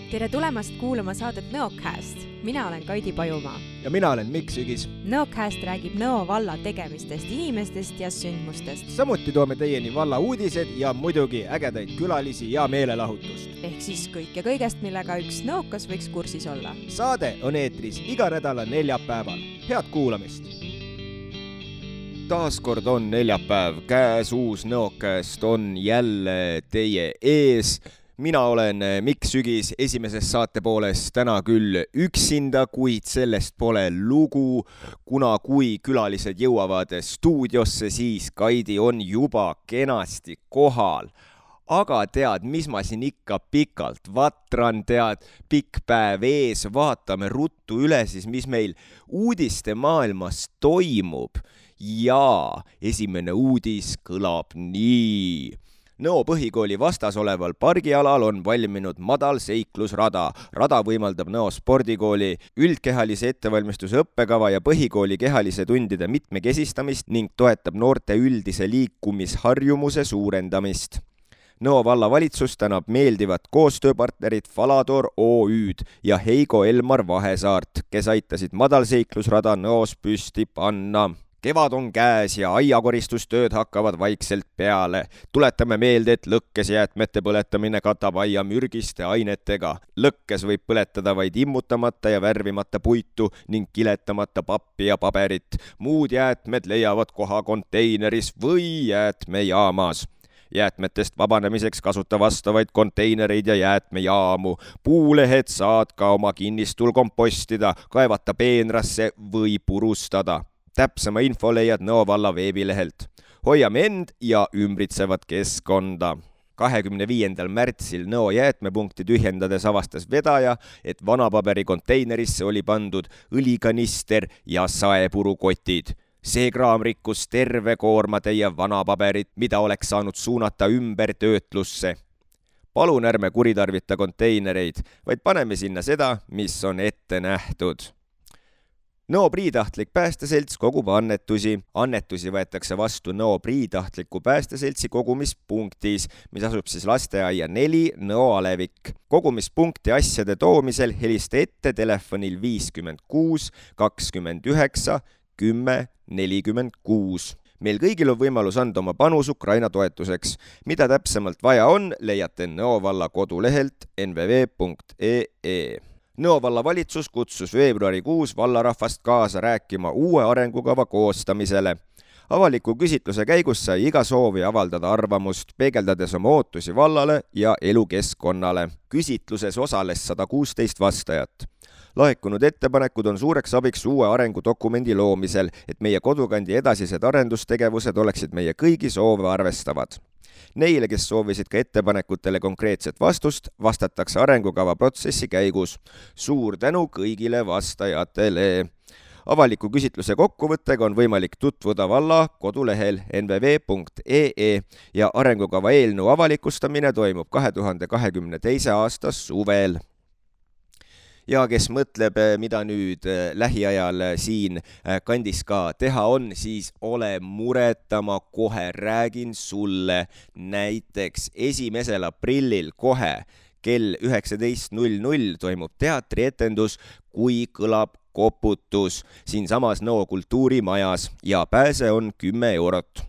Tere tulemast kuulama saadet Nõocast. Mina olen Kaidi Pajumaa. Ja mina olen Mikk Sügis. Nõocast räägib Nõo valla tegemistest, inimestest ja sündmustest. Samuti toome teieni valla uudised ja muidugi ägedaid külalisi ja meelelahutust. Ehk siis kõik ja kõigest, millega üks nõokas võiks kursis olla. Saade on eetris iga nädala neljapäeval. Head kuulamist! Taaskord on neljapäev, käes uus Nõocast on jälle teie ees. Mina olen Mikk Sügis esimeses saate pooles täna küll üksinda, kuid sellest pole lugu, kuna kui külalised jõuavad stuudiosse, siis Kaidi on juba kenasti kohal. Aga tead, mis ma siin ikka pikalt vatran, tead, pikk päev ees, vaatame ruttu üle siis, mis meil uudiste maailmas toimub. Ja esimene uudis kõlab nii. Nõo põhikooli vastas oleval pargialal on valminud madalseiklusrada. Rada võimaldab Nõo spordikooli üldkehalise ettevalmistuse õppekava ja põhikooli kehalise tundide mitmekesistamist ning toetab noorte üldise liikumisharjumuse suurendamist. Nõo vallavalitsus tänab meeldivat koostööpartnerit Falador OÜ-d ja Heigo Elmar Vahesaart, kes aitasid madalseiklusrada Nõos püsti panna. Kevad on käes ja aiakoristustööd hakkavad vaikselt peale. Tuletame meelde, et lõkkes jäätmete põletamine katab aia mürgiste ainetega. Lõkkes võib põletada vaid immutamata ja värvimata puitu ning kiletamata pappi ja paberit. Muud jäätmed leiavad koha konteineris või jäätmejaamas. Jäätmetest vabanemiseks kasuta vastavaid konteinereid ja jäätmejaamu. Puulehed saad ka oma kinnistul kompostida, kaevata peenrasse või purustada. Täpsema info leiad Nõo valla veebilehelt. Hoiame end ja ümbritsevat keskkonda. 25. märtsil Nõo jäätmepunkti tühjendades avastas vedaja, et vanapaberi konteinerisse oli pandud õlikanister ja saepurukotid. See kraam rikkus terve koormatäie vanapaberit, mida oleks saanud suunata ümber töötlusse. Palun ärme kuritarvita konteinereid, vaid paneme sinna seda, mis on ette nähtud. Nõo Priitahtlik päästeselts kogub annetusi. Annetusi võetakse vastu Nõo Priitahtliku päästeseltsi kogumispunktis, mis asub siis lasteaia 4 Nõo Alevik. Kogumispunkti asjade toomisel helista ette telefonil 56 29 10 46. Meil kõigil on võimalus anda oma panus Ukraina toetuseks. Mida täpsemalt vaja on, leiate Nõo valla kodulehelt nvv.ee. Nõo valla valitsus kutsus veebruarikuus vallarahvast kaasa rääkima uue arengukava koostamisele. Avaliku küsitluse käigus sai iga soovi avaldada arvamust, peegeldades oma ootusi vallale ja elukeskkonnale. Küsitluses osales 116 vastajat. Laekunud ettepanekud on suureks abiks uue arengudokumendi loomisel, et meie kodukandi edasised arendustegevused oleksid meie kõigi soove arvestavad. Neile, kes soovisid ka ettepanekutele konkreetset vastust, vastatakse arengukava protsessi käigus. Suur tänu kõigile vastajatele. Avaliku küsitluse kokkuvõttega on võimalik tutvuda valla kodulehel nvv.ee ja arengukava eelnõu avalikustamine toimub 2022. aasta suvel. Ja kes mõtleb, mida nüüd lähiajal siin kandis ka teha on, siis ole mureta, ma kohe räägin sulle. Näiteks 1. aprillil kohe kell 19.00 toimub teatrietendus Kui kõlab koputus siinsamas Nõo kultuurimajas ja pääse on 10 eurot.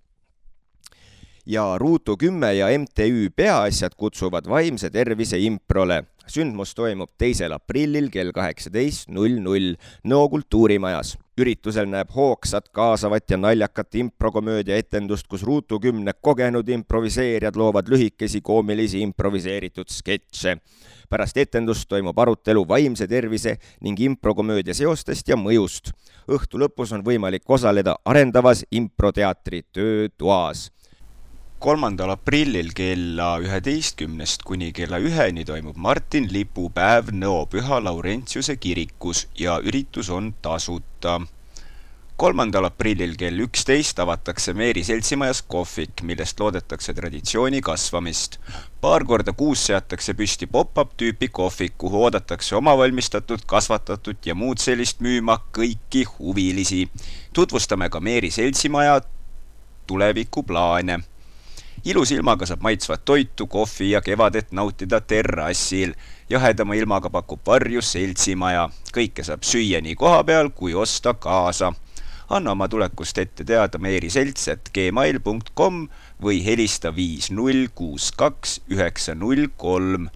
Ja Ruutu 10 ja MTÜ Peaasjad kutsuvad vaimse tervise improle. Sündmus toimub 2. aprillil kell 18.00 Nõo kultuurimajas. Üritusel näeb hoogsat, kaasavat ja naljakat improkomöödia etendust, kus Ruutu 10 kogenud improviseerijad loovad lühikesi koomilisi improviseeritud sketše. Pärast etendust toimub arutelu vaimse tervise ning improkomöödia seostest ja mõjust. Õhtu lõpus on võimalik osaleda arendavas improteatri töötoas. 3. aprillil kella 11 kuni kella 1 toimub Martin lipupäev Nõo Püha Laurentiuse kirikus ja üritus on tasuta. 3. aprillil kell 11 avatakse Meeri seltsimajas kohvik, millest loodetakse traditsiooni kasvamist. Paar korda kuus seatakse püsti pop-up tüüpi kohvik, kuhu oodatakse omavalmistatud, kasvatatud ja muud sellist müüma kõiki huvilisi. Tutvustame ka Meeri seltsimaja tulevikuplaane. ilus ilmaga saab maitsvat toitu, kohvi ja kevadet nautida terrassil. Jahedama ilmaga pakub varju seltsimaja. Kõike saab süüa nii koha peal kui osta kaasa. Anna oma tulekust ette teada meeriselts@gmail.com või helista 5062-903.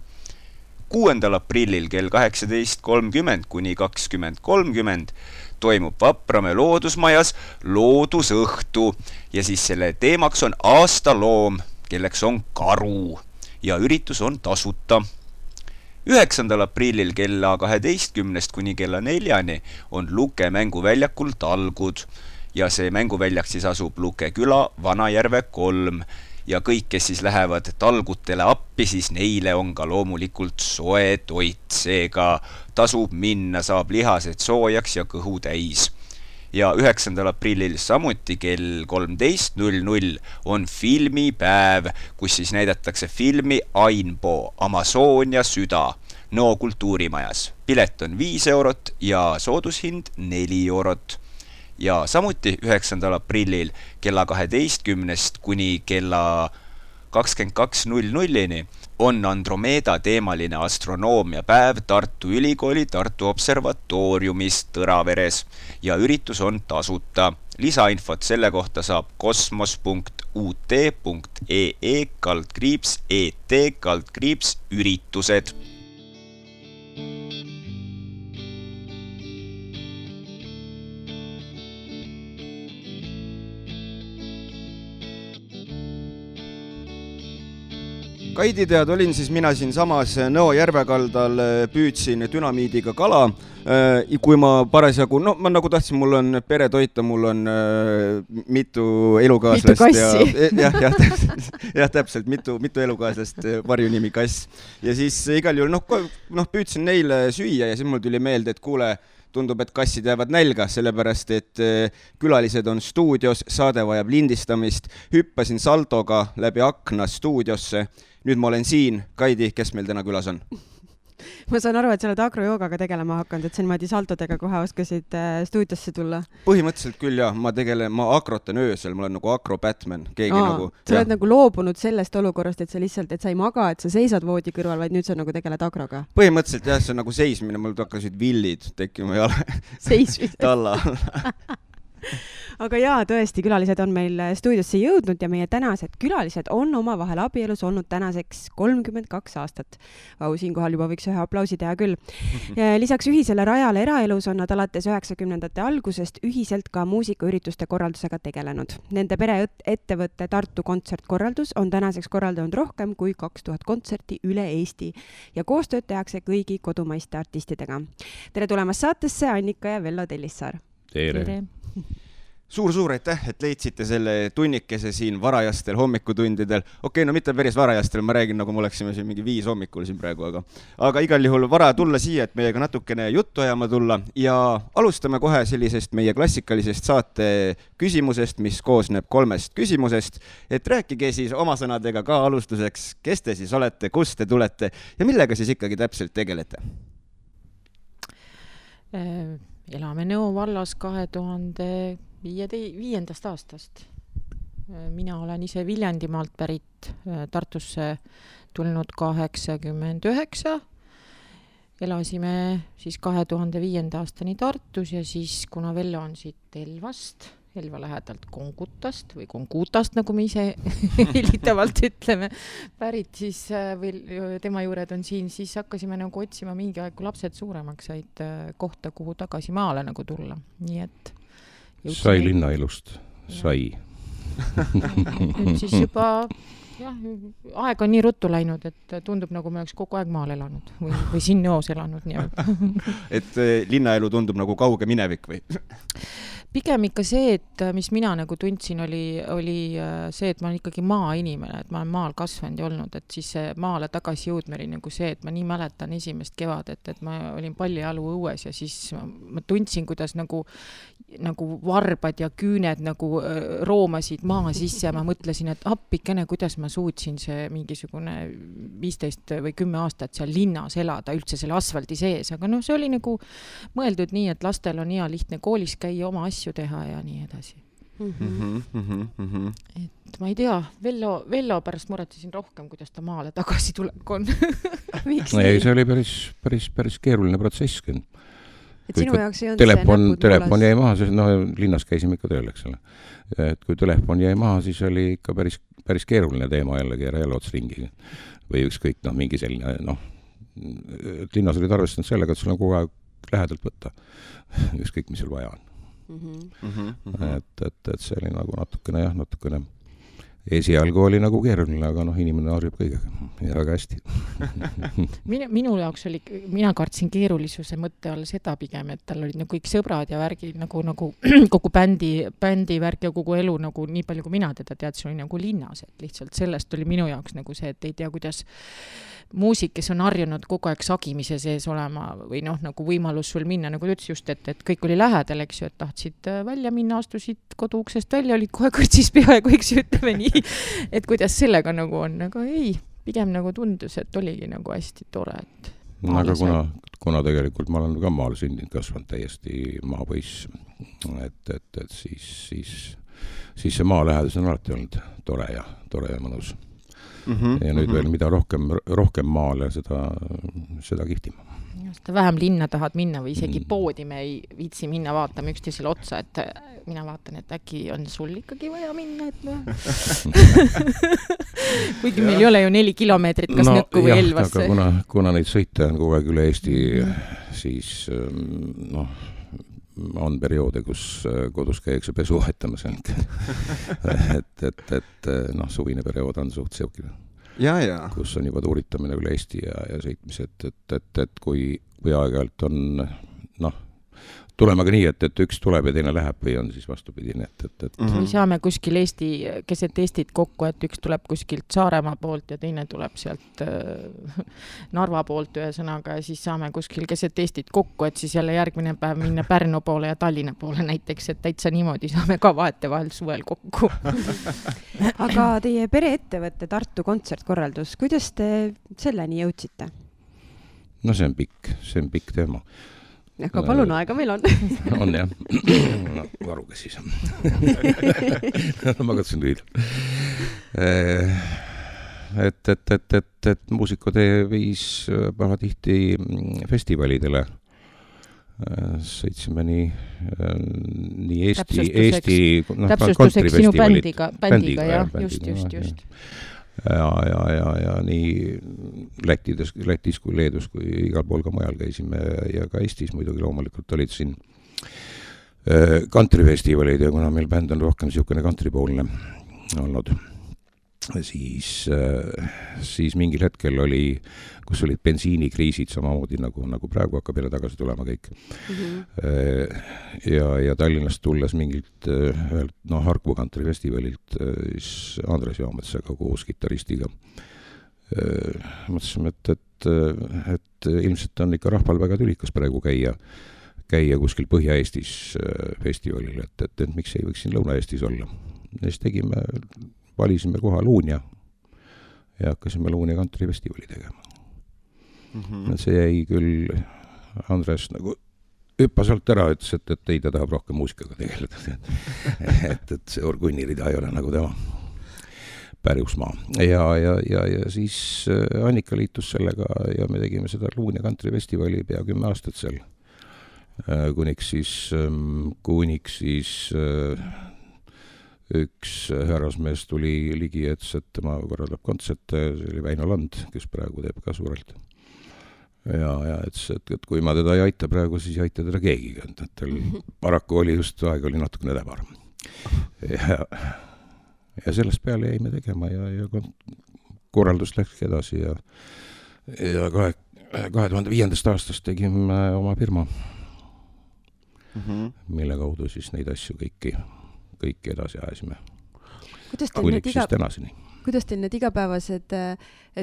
6. aprillil kell 18.30 kuni 20.30 toimub Vapramäe loodusmajas loodusõhtu ja siis selle teemaks on aastaloom, kelleks on karu ja üritus on tasuta. 9. aprillil kella 12 kuni kella 4 on Luke mänguväljakul talgud ja see mänguväljak siis asub Luke küla Vanajärve 3 ja kõik, kes siis lähevad talgutele appi, siis neile on ka loomulikult soe toit, seega tasub minna, saab lihased soojaks ja kõhu täis. Ja 9. aprillil samuti kell 13.00 on filmipäev, kus siis näidatakse filmi Ainbo, Amazonia süda, Nõo kultuurimajas. Pilet on 5 eurot ja soodushind 4 eurot. Ja samuti 9. aprillil kella 12 kuni kella 22.00 on Andromeeda teemaline astronoomiapäev Tartu Ülikooli Tartu Observatooriumis Tõraveres ja üritus on tasuta. Lisainfot selle kohta saab kosmos.ut.ee/et/üritused. Kaidi tead, olin siis mina siin samas Nõo järvekaldal, püüdsin dünamiidiga kala, kui ma parasjagu, ma nagu tahtsin, mul on pere toita, mul on mitu elukaaslast. Mitu kassi. Ja täpselt, mitu elukaaslast, varjunimi kass. Ja siis igal juhul, püüdsin neile süüa ja siis mul tuli meelde, et kuule, tundub, et kassid jäävad nälga, sellepärast, et külalised on stuudios, saade vajab lindistamist, hüppasin saltoga läbi akna stuudiosse. Nüüd ma olen siin. Kaidi, kes meil täna külas on? Ma saan aru, et sa oled agrojoogaga tegelema hakanud, et sa niimoodi saltodega kohe oskasid stuudiosse tulla. Põhimõtteliselt küll jah, ma akrotan öösel, ma olen nagu akro-Batman. Sa oled nagu loobunud sellest olukorrast, et sa lihtsalt, et sa ei maga, et sa seisad voodi kõrval, vaid nüüd sa nagu tegeled agroga. Põhimõtteliselt jah, see on nagu seismine, mul hakkasid villid tekkima jala. Seismine. Talla. Aga jaa, tõesti, külalised on meil stuudiosse jõudnud ja meie tänased külalised on oma vahel abielus olnud tänaseks 32 aastat. Siinkohal juba võiks ühe aplausi teha küll. Lisaks ühisele rajale eraelus on nad alates 90ndate algusest ühiselt ka muusikaürituste korraldusega tegelenud. Nende pereettevõtte Tartu kontsertkorraldus on tänaseks korraldanud rohkem kui 2000 kontserti üle Eesti ja koostööd tehakse kõigi kodumaiste artistidega. Tere tulemast saatesse, Annika ja Vello Tellissaar. Tere. Suur aitäh, et leidsite selle tunnikese siin varajastel hommikutundidel. Okei, no mitte päris varajastel, ma räägin, nagu me oleksime siin mingi 5 hommikul siin praegu, aga igal juhul vara tulla siia, et meiega natukene juttu ajama tulla ja alustame kohe sellisest meie klassikalisest saate küsimusest, mis koosneb 3 küsimusest, et rääkige siis oma sõnadega ka alustuseks, kes te siis olete, kust te tulete ja millega siis ikkagi täpselt tegelete? Elame Nõo vallas 2005. aastast. Mina olen ise Viljandimaalt pärit, Tartusse tulnud 89. Elasime siis 2005. aastani Tartus ja siis, kuna Vello on siit Elva lähedalt Kongutast või Kongutast, nagu me ise helitavalt ütleme, pärit siis tema juured on siin, siis hakkasime nagu otsima mingi aeg, kui lapsed suuremaks said kohta, kuhu tagasi maale nagu tulla. Nii et sai linnaelust, sai. Nüüd siis juba aeg on nii ruttu läinud, et tundub nagu me oleks kogu aeg maal elanud või siin Nõos elanud. Et linnaelu tundub nagu kauge minevik või? Pigem ikka see, et mis mina nagu tundsin, oli see, et ma olen ikkagi maainimene, et ma olen maal kasvanud ja olnud, et siis maale tagasi jõudma oli nagu see, et ma nii mäletan esimest kevadet, et ma olin pallijalu õues ja siis ma tundsin, kuidas nagu varbad ja küüned nagu roomasid maa sisse ja ma mõtlesin, et appikene, kuidas ma suutsin see mingisugune 15 või 10 aastat seal linnas elada üldse selle asfaldi sees, aga see oli nagu mõeldud nii, et lastel on hea lihtne koolis käia, oma asju teha ja nii edasi. Et ma ei tea, Vello pärast muretsesin rohkem, kuidas ta maale tagasi tulek on. Ei, see oli päris keeruline protsess. Et sinu jaoks ei olnud telefon jäi maha, sest linnas käisime ikka tööl, eks ole. Et kui telefon jäi maha, siis oli ikka päris keeruline teema jällegi jälle ots ringi. Või ükskõik, mingi selline, linnas olid arvestanud sellega, et sul on kogu aeg lähedalt võtta. Ükskõik, mis sul vaja on. Et see oli nagu natukene esialgu oli nagu keeruline, aga inimene harjub kõigega ja väga hästi. Minu jaoks oli, mina kartsin keerulisuse mõtte all seda pigem, et tal olid kõik sõbrad ja värgid nagu kogu bändi värk ja kogu elu nagu nii palju, kui mina teda teadsin, oli nagu linnas, et lihtsalt sellest oli minu jaoks nagu see, et ei tea, kuidas muusik, kes on harjunud kogu aeg sagimise sees olema või nagu võimalus sul minna, nagu ütles just, et kõik oli lähedal, eks ju, et tahtsid välja minna, astusid koduuksest välja, olid kohe kõrtsis peaaegu, eks ju, ütleme nii, et kuidas sellega nagu on, aga ei, pigem nagu tundus, et oligi nagu hästi tore, et aga kuna tegelikult ma olen ka maal sündinud, kasvanud täiesti maapoiss, et siis see maa lähedus on alati olnud tore ja mõnus. Ja nüüd veel mida rohkem maale, seda kihtima. Seda vähem linna tahad minna või isegi poodi me ei viitsi minna vaatama üksteisele otsa, et mina vaatan, et äkki on sul ikkagi vaja minna, kuigi meil ei ole ju 4 kilomeetrit kas Nõkku või Elvasse. Aga kuna neid sõite on kogu aeg üle Eesti, siis on perioode, kus kodus käiakse pesu vahetamas. et suvine periood on suht seokil. Kus on juba tuuritamine üle Eesti ja sõitmised, et kui aeg-ajalt on, tulema ka nii, et üks tuleb ja teine läheb või on siis vastupidine. Või saame kuskil keset Eestit kokku, et üks tuleb kuskilt Saaremaa poolt ja teine tuleb sealt Narva poolt ühesõnaga ja siis saame kuskil keset Eestit kokku, et siis jälle järgmine päev minna Pärnu poole ja Tallinna poole näiteks, et täitsa niimoodi saame ka vahetevahel suvel kokku. Aga teie pereettevõtte Tartu kontsertkorraldus, kuidas te selleni jõudsite? See on pikk teema. Aga palun, aega meil on. On jah. Varuga siis. Ma katsun lüüda. Et muusikutee viis pahatihti festivalidele. Sõitsime nii Eesti täpsustuseks sinu bändiga, jah, just. Ja nii Lätis kui Leedus kui igal pool ka mujal käisime ja ka Eestis muidugi loomulikult olid siin kantrifestivalid ja kuna meil bänd on rohkem niisugune kantripoolne olnud, siis mingil hetkel kus olid bensiinikriisid samamoodi nagu praegu hakkab jälle tagasi tulema kõik. Ja Tallinnast tulles mingilt Harku kantrifestivalilt siis Andres Jaametsaga koos kitaristiga. Mõtlesime, et ilmselt on ikka rahval väga tülikas praegu käia kuskil Põhja-Eestis festivalil, et miks ei võiks siin Lõuna-Eestis olla. Ja siis valisime koha Luunja ja hakkasime Luunja kantrifestivali tegema. See jäi küll, Andres nagu hüppas alt ära, ütles, et ei, ta tahab rohkem muusikaga tegeleda. et see orgunnirida ei ole nagu tema pärjusmaa. Ja siis Annika liitus sellega ja me tegime seda Luunja kantrifestivali pea 10 aastat seal. Kuniks siis üks härrasmees tuli ligi, et tema korraldab kontserte, see oli Väino Land, kes praegu teeb ka suurelt. Ja et kui ma teda ei aita praegu, siis ei aita teda keegi. Tal paraku oli just aeg oli natukene täbar. Ja sellest peale jäime tegema ja korraldus läks edasi ja 2005. aastast tegime oma firma, mille kaudu siis neid asju kõiki edasi ajasime. Kuniks siis tänaseni. Kuidas teil need igapäevased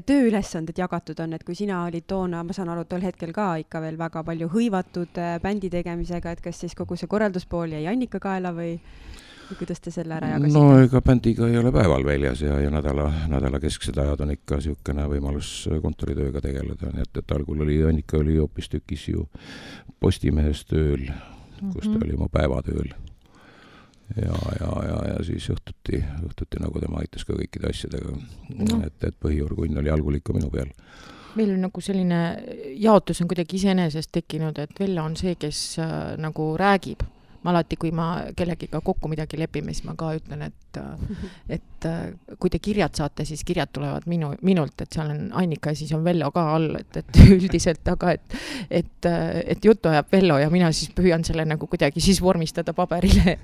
tööülesanded jagatud on, et kui sina olid toona, ma saan aru, tol hetkel ka ikka veel väga palju hõivatud bändi tegemisega, et kas siis kogu see korralduspool jäi Annika kaela või kuidas te selle ära jagasite? Ega bändiga ei ole päeval väljas ja nädala kesksed ajad on ikka niisugune võimalus kontoritööga tegeleda, nii et algul Annika oli hoopis tükis ju Postimehes tööl, kus ta oli oma päevatööl. ja siis õhtuti nagu tema aitas ka kõikide asjadega, et põhiorgunn oli algul ikka minu peal. Meil on nagu selline jaotus on kuidagi iseenesest tekkinud, et Vello on see, kes nagu räägib. Ma alati, kui ma kellegiga kokku midagi lepime, siis ma ka ütlen, et kui te kirjad saate, siis kirjad tulevad minult, et seal on Annika ja siis on Vello ka all, et üldiselt, aga et juttu ajab Vello ja mina siis püüan selle nagu kuidagi siis vormistada paberile.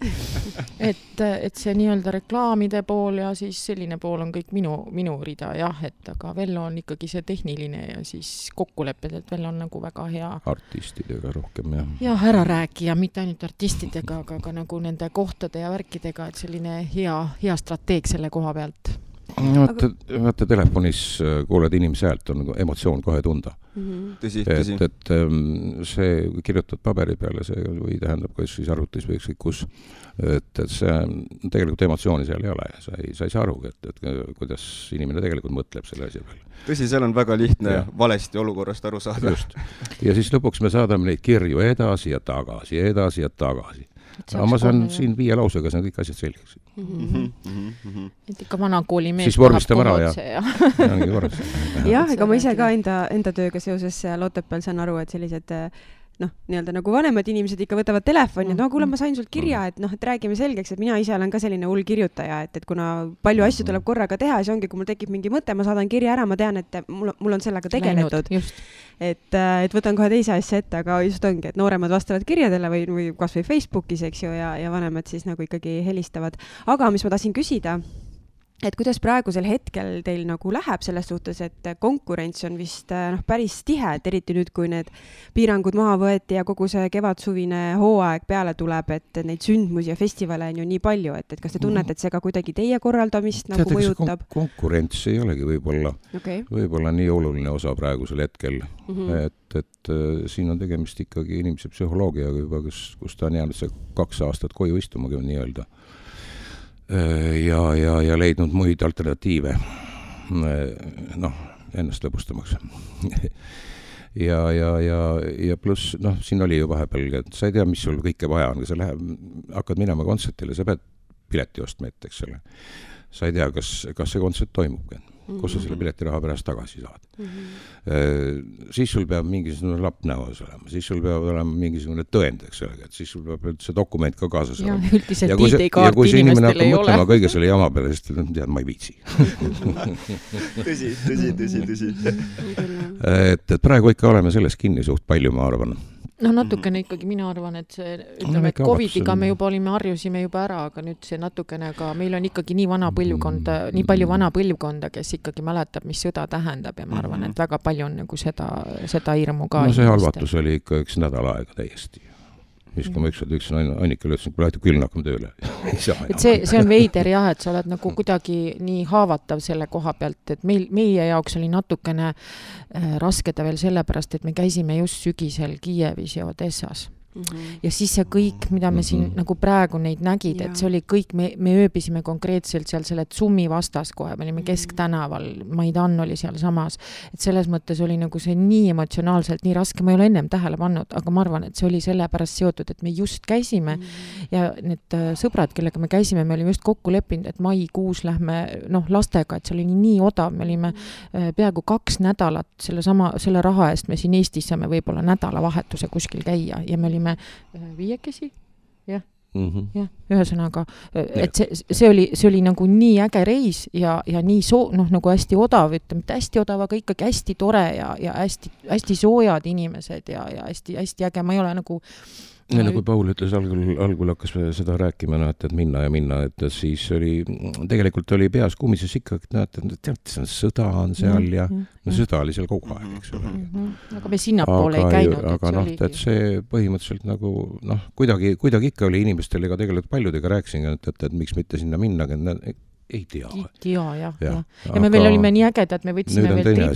et see nii-öelda reklaamide pool ja siis selline pool on kõik minu rida, jah, et aga Vello on ikkagi see tehniline ja siis kokkulepped, et Vello on nagu väga hea. Artistidega rohkem, jah. Jah, ära rääkija, mitte ainult artistidega, aga nagu nende kohtade ja värkidega, et selline hea strateeg selle koha pealt. Vaata telefonis kuuled inimese häält, on emotsioon kohe tunda. Tõsi. Et see kirjutad paberi peale, see või tähendab, kui siis arvutis või kus, et see tegelikult emotsiooni seal ei ole. Sa ei saa aru, et kuidas inimene tegelikult mõtleb selle asja peale. Tõsi, seal on väga lihtne valesti olukorrast aru saada. Just. Ja siis lõpuks me saadame neid kirju edasi ja tagasi. Aga ma saan siin 5 lausega, see on kõik asjad selgeks. Et ikka vanakooli mees siis vormistame ära jah, ega ma ise ka enda tööga seoses Otepääl saan aru, et sellised nii-öelda nagu vanemad inimesed ikka võtavad telefoni, et kuule, ma sain sult kirja, et et räägime selgeks, et mina ise olen ka selline hull kirjutaja, et kuna palju asju tuleb korraga teha, siis ongi, kui mul tekib mingi mõte, ma saadan kirja ära, ma tean, et mul on sellega tegeletud. Et võtan kohe teise asja ette, aga just ongi, et nooremad vastavad kirjadele või kas või Facebookis, eks ju, ja vanemad siis nagu ikkagi helistavad. Aga mis ma tahtsin küsida, et kuidas praegusel hetkel teil nagu läheb selles suhtes, et konkurents on vist päris tihe, et eriti nüüd, kui need piirangud maha võeti ja kogu see kevadsuvine hooaeg peale tuleb, et neid sündmusi ja festivale on ju nii palju, et kas te tunnete, et see ka kuidagi teie korraldamist nagu mõjutab? Konkurents ei olegi võib-olla nii oluline osa praegusel hetkel, et siin on tegemist ikkagi inimese psühholoogiaga juba, kus ta on jäänud see 2 aastat koju istumagi nii-öelda. Ja leidnud muid alternatiive ennast lõbustamaks. ja pluss, siin oli ju vahepeal, et sa ei tea, mis sul kõike vaja on, kui sa hakkad minema kontsertile, sa pead pileti ostma ette, eks ole. Sa ei tea, kas see kontsert toimubki, kus sa selle piletiraha pärast tagasi saad. Siis sul peab mingisugune lapp näos olema, siis sul peab olema mingisugune tõend, eks ole, et siis sul peab see dokument ka kaasas olema. Ja kui see inimene hakkab mõtlema kõige selle jama peale, siis tead, ma ei viitsi. Tõsi. Et praegu ikka oleme selles kinni suht palju, ma arvan. Natukene ikkagi mina arvan, et see, ütleme, et COVID-iga me juba harjusime juba ära, aga nüüd see natukene ka, meil on ikkagi nii palju vana põlvkonda, kes ikkagi mäletab, mis sõda tähendab ja ma arvan, et väga palju on nagu seda hirmu ka. See halvatus oli ikka 1 nädal aega täiesti. Siis kui ma üksin Annikale ütlesin, kui lähete küll hakkame tööle. Et see on veider jah, et sa oled nagu kuidagi nii haavatav selle koha pealt, et meie jaoks oli natukene raskeda veel sellepärast, et me käisime just sügisel Kiievis ja Odessas. Ja siis see kõik, mida me siin nagu praegu neid nägid, et see oli kõik, me ööbisime konkreetselt seal selle Tsummi vastas kohe, me olime Kesktänaval, Maidan oli seal samas, et selles mõttes oli nagu see nii emotsionaalselt, nii raske, ma ei ole ennem tähele pannud, aga ma arvan, et see oli sellepärast seotud, et me just käisime ja need sõbrad, kellega me käisime, me olime just kokku leppinud, et maikuus lähme lastega, et see oli nii odav, me olime peaaegu 2 nädalat selle raha eest, me siin Eestis saame võib-olla nädalavahetuse kuskil käia ja me olime 5 jah, ühesõnaga, et see oli nagu nii äge reis ja nii nagu hästi odav, ütleme, mitte hästi odav, aga ikkagi hästi tore ja hästi soojad inimesed ja hästi äge, ma ei ole nagu kui Paul ütles, algul hakkas seda rääkima, et minna, et siis tegelikult oli peas kummises ikka, et see on sõda on seal ja sõda oli seal kogu aeg, eks ole. Aga me sinnapoole ei käinud. Aga et see põhimõtteliselt nagu, kuidagi ikka oli inimestel, ega tegelikult paljudega rääkisin, et miks mitte sinna minna, ei tea. Ja me veel olime nii ägedad, me võtsime veel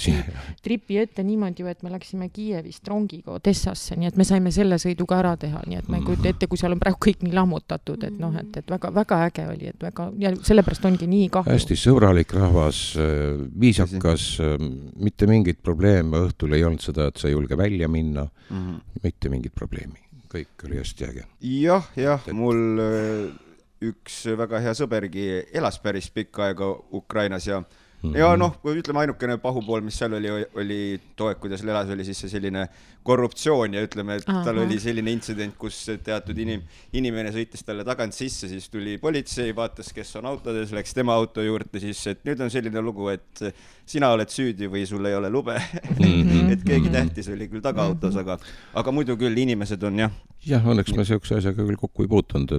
tripi ette niimoodi, et me läksime Kiievist rongiga Odessasse, nii et me saime selle sõiduga ära teha, nii et ma ei kujuta ette, kui seal on praegu kõik nii lammutatud, et väga äge oli, et ja sellepärast ongi nii kahju. Hästi sõbralik rahvas, viisakas, mitte mingit probleeme, õhtul ei olnud seda, et sa ei julge välja minna, mitte mingit probleemi, kõik oli hästi äge. Jah, mul üks väga hea sõbergi elas päris pikka aega Ukrainas ja noh, ütleme ainukene pahupool, mis seal oli toek, kuidas elas, oli siis see selline korruptsioon ja ütleme, et tal oli selline intsident, kus teatud inimene sõitis talle tagant sisse, siis tuli politsei, vaatas, kes on autodes, läks tema auto juurde, siis et nüüd on selline lugu, et sina oled süüdi või sul ei ole lube, et keegi tähtis oli küll tagaautos, aga muidu küll inimesed on jah. Jah, õnneks me sellise asjaga küll kokku ei puutunud,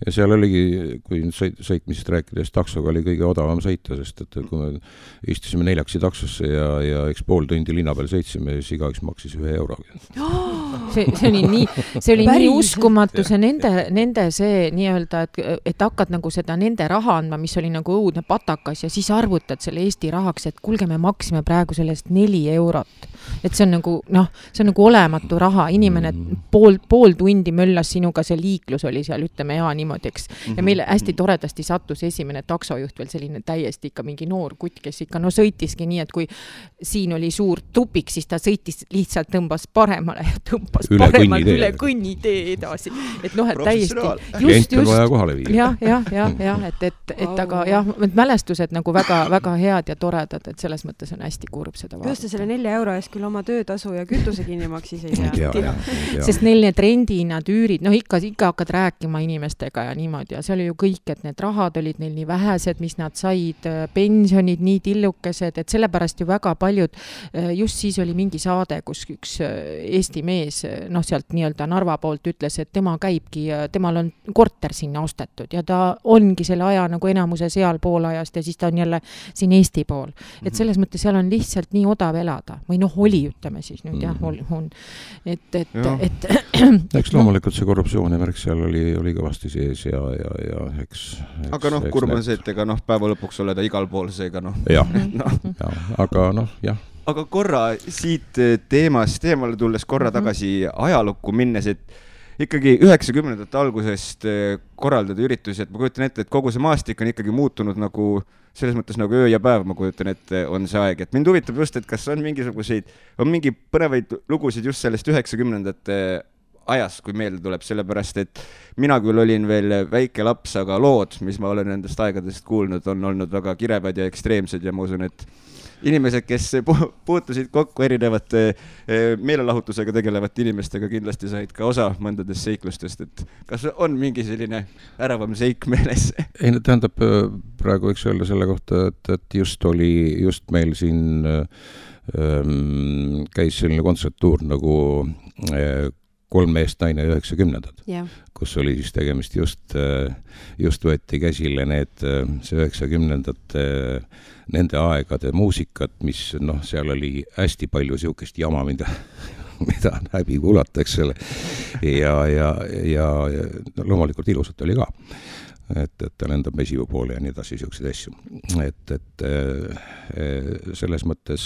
ja seal oligi, kui sõitmisest rääkides, taksoga oli kõige odavam sõita, sest et kui me istusime 4 taksosse ja eks pool tundi linna peal sõitsime, siis igaüks maksis 1 euro. See oli nii uskumatu, see nende see nii-öelda, et hakkad nagu seda nende raha andma, mis oli nagu õudne patakas ja siis arvutad selle Eesti rahaks, et kuulge, me maksime praegu sellest 4 eurot. Et see on nagu olematu raha, inimene pool tundi möllas sinuga, see liiklus oli seal, ütleme niimoodi, eks. Ja meile hästi toredasti sattus esimene taksojuht veel selline täiesti ikka mingi noor kutt, kes ikka sõitiski nii, et kui siin oli suur tupik, siis ta sõitis lihtsalt tõmbas paremale ja tõmbas paremalt üle kõnnitee edasi. Et et täiesti klient on vaja kohale viia. Jah, et aga jah, mälestused nagu väga head ja toredad, et selles mõttes on hästi kurb seda vaadata. Just selle 4 euro eest küll oma töötasu ja kütuse kinni maksis ei tea. Sest neil need rendihinnad, üürid, ikka hakkad rääkima inimestega ja niimoodi ja see oli ju kõik, et need rahad olid neil nii vähesed, mis nad said, pensionid nii tillukesed, et sellepärast ju väga paljud, just siis oli mingi saade, kus üks Eesti mees, sealt nii-öelda Narva poolt ütles, et tema käibki, temal on korter sinna ostetud ja ta ongi selle aja nagu enamuse seal pool ajast ja siis ta on jälle siin Eesti pool. Et selles mõttes seal on lihtsalt nii odav elada või oli, ütleme siis nüüd jah, on. Eks loomulikult see korruptsiooni märk seal oli kõvasti sees ja eks. Aga kurb on see, et ega päeva lõpuks oleda igal pool seega aga jah. Aga korra siit teemale tulles korra tagasi ajalukku minnes, et ikkagi 90ndate algusest korraldada üritusi, et ma kujutan ette, et kogu see maastik on ikkagi muutunud nagu selles mõttes nagu öö ja päev, ma kujutan ette, on see aeg. Et mind huvitab just, et kas on mingi põnevaid lugusid just sellest 90ndate ajas, kui meelde tuleb, sellepärast, et mina küll olin veel väike laps, aga lood, mis ma olen nendest aegadest kuulnud, on olnud väga kirevad ja ekstreemsed ja ma usun, et inimesed, kes puutusid kokku erinevate meelelahutusega tegelevate inimestega, kindlasti said ka osa mõndadest seiklustest, et kas on mingi selline äravam seik meeles? Ei, tähendab, praegu võiks öelda selle kohta, et just meil siin käis selline kontserttuur nagu 3 meest naine 90ndad, kus oli siis tegemist just võeti käsile see 90ndate nende aegade muusikat, mis seal oli hästi palju siukest jama, mida on häbi kuulata, eks selle. Ja loomulikult ilusat oli ka. Et ta lendab mesivu poole ja nii edasi siukseid asju. Et selles mõttes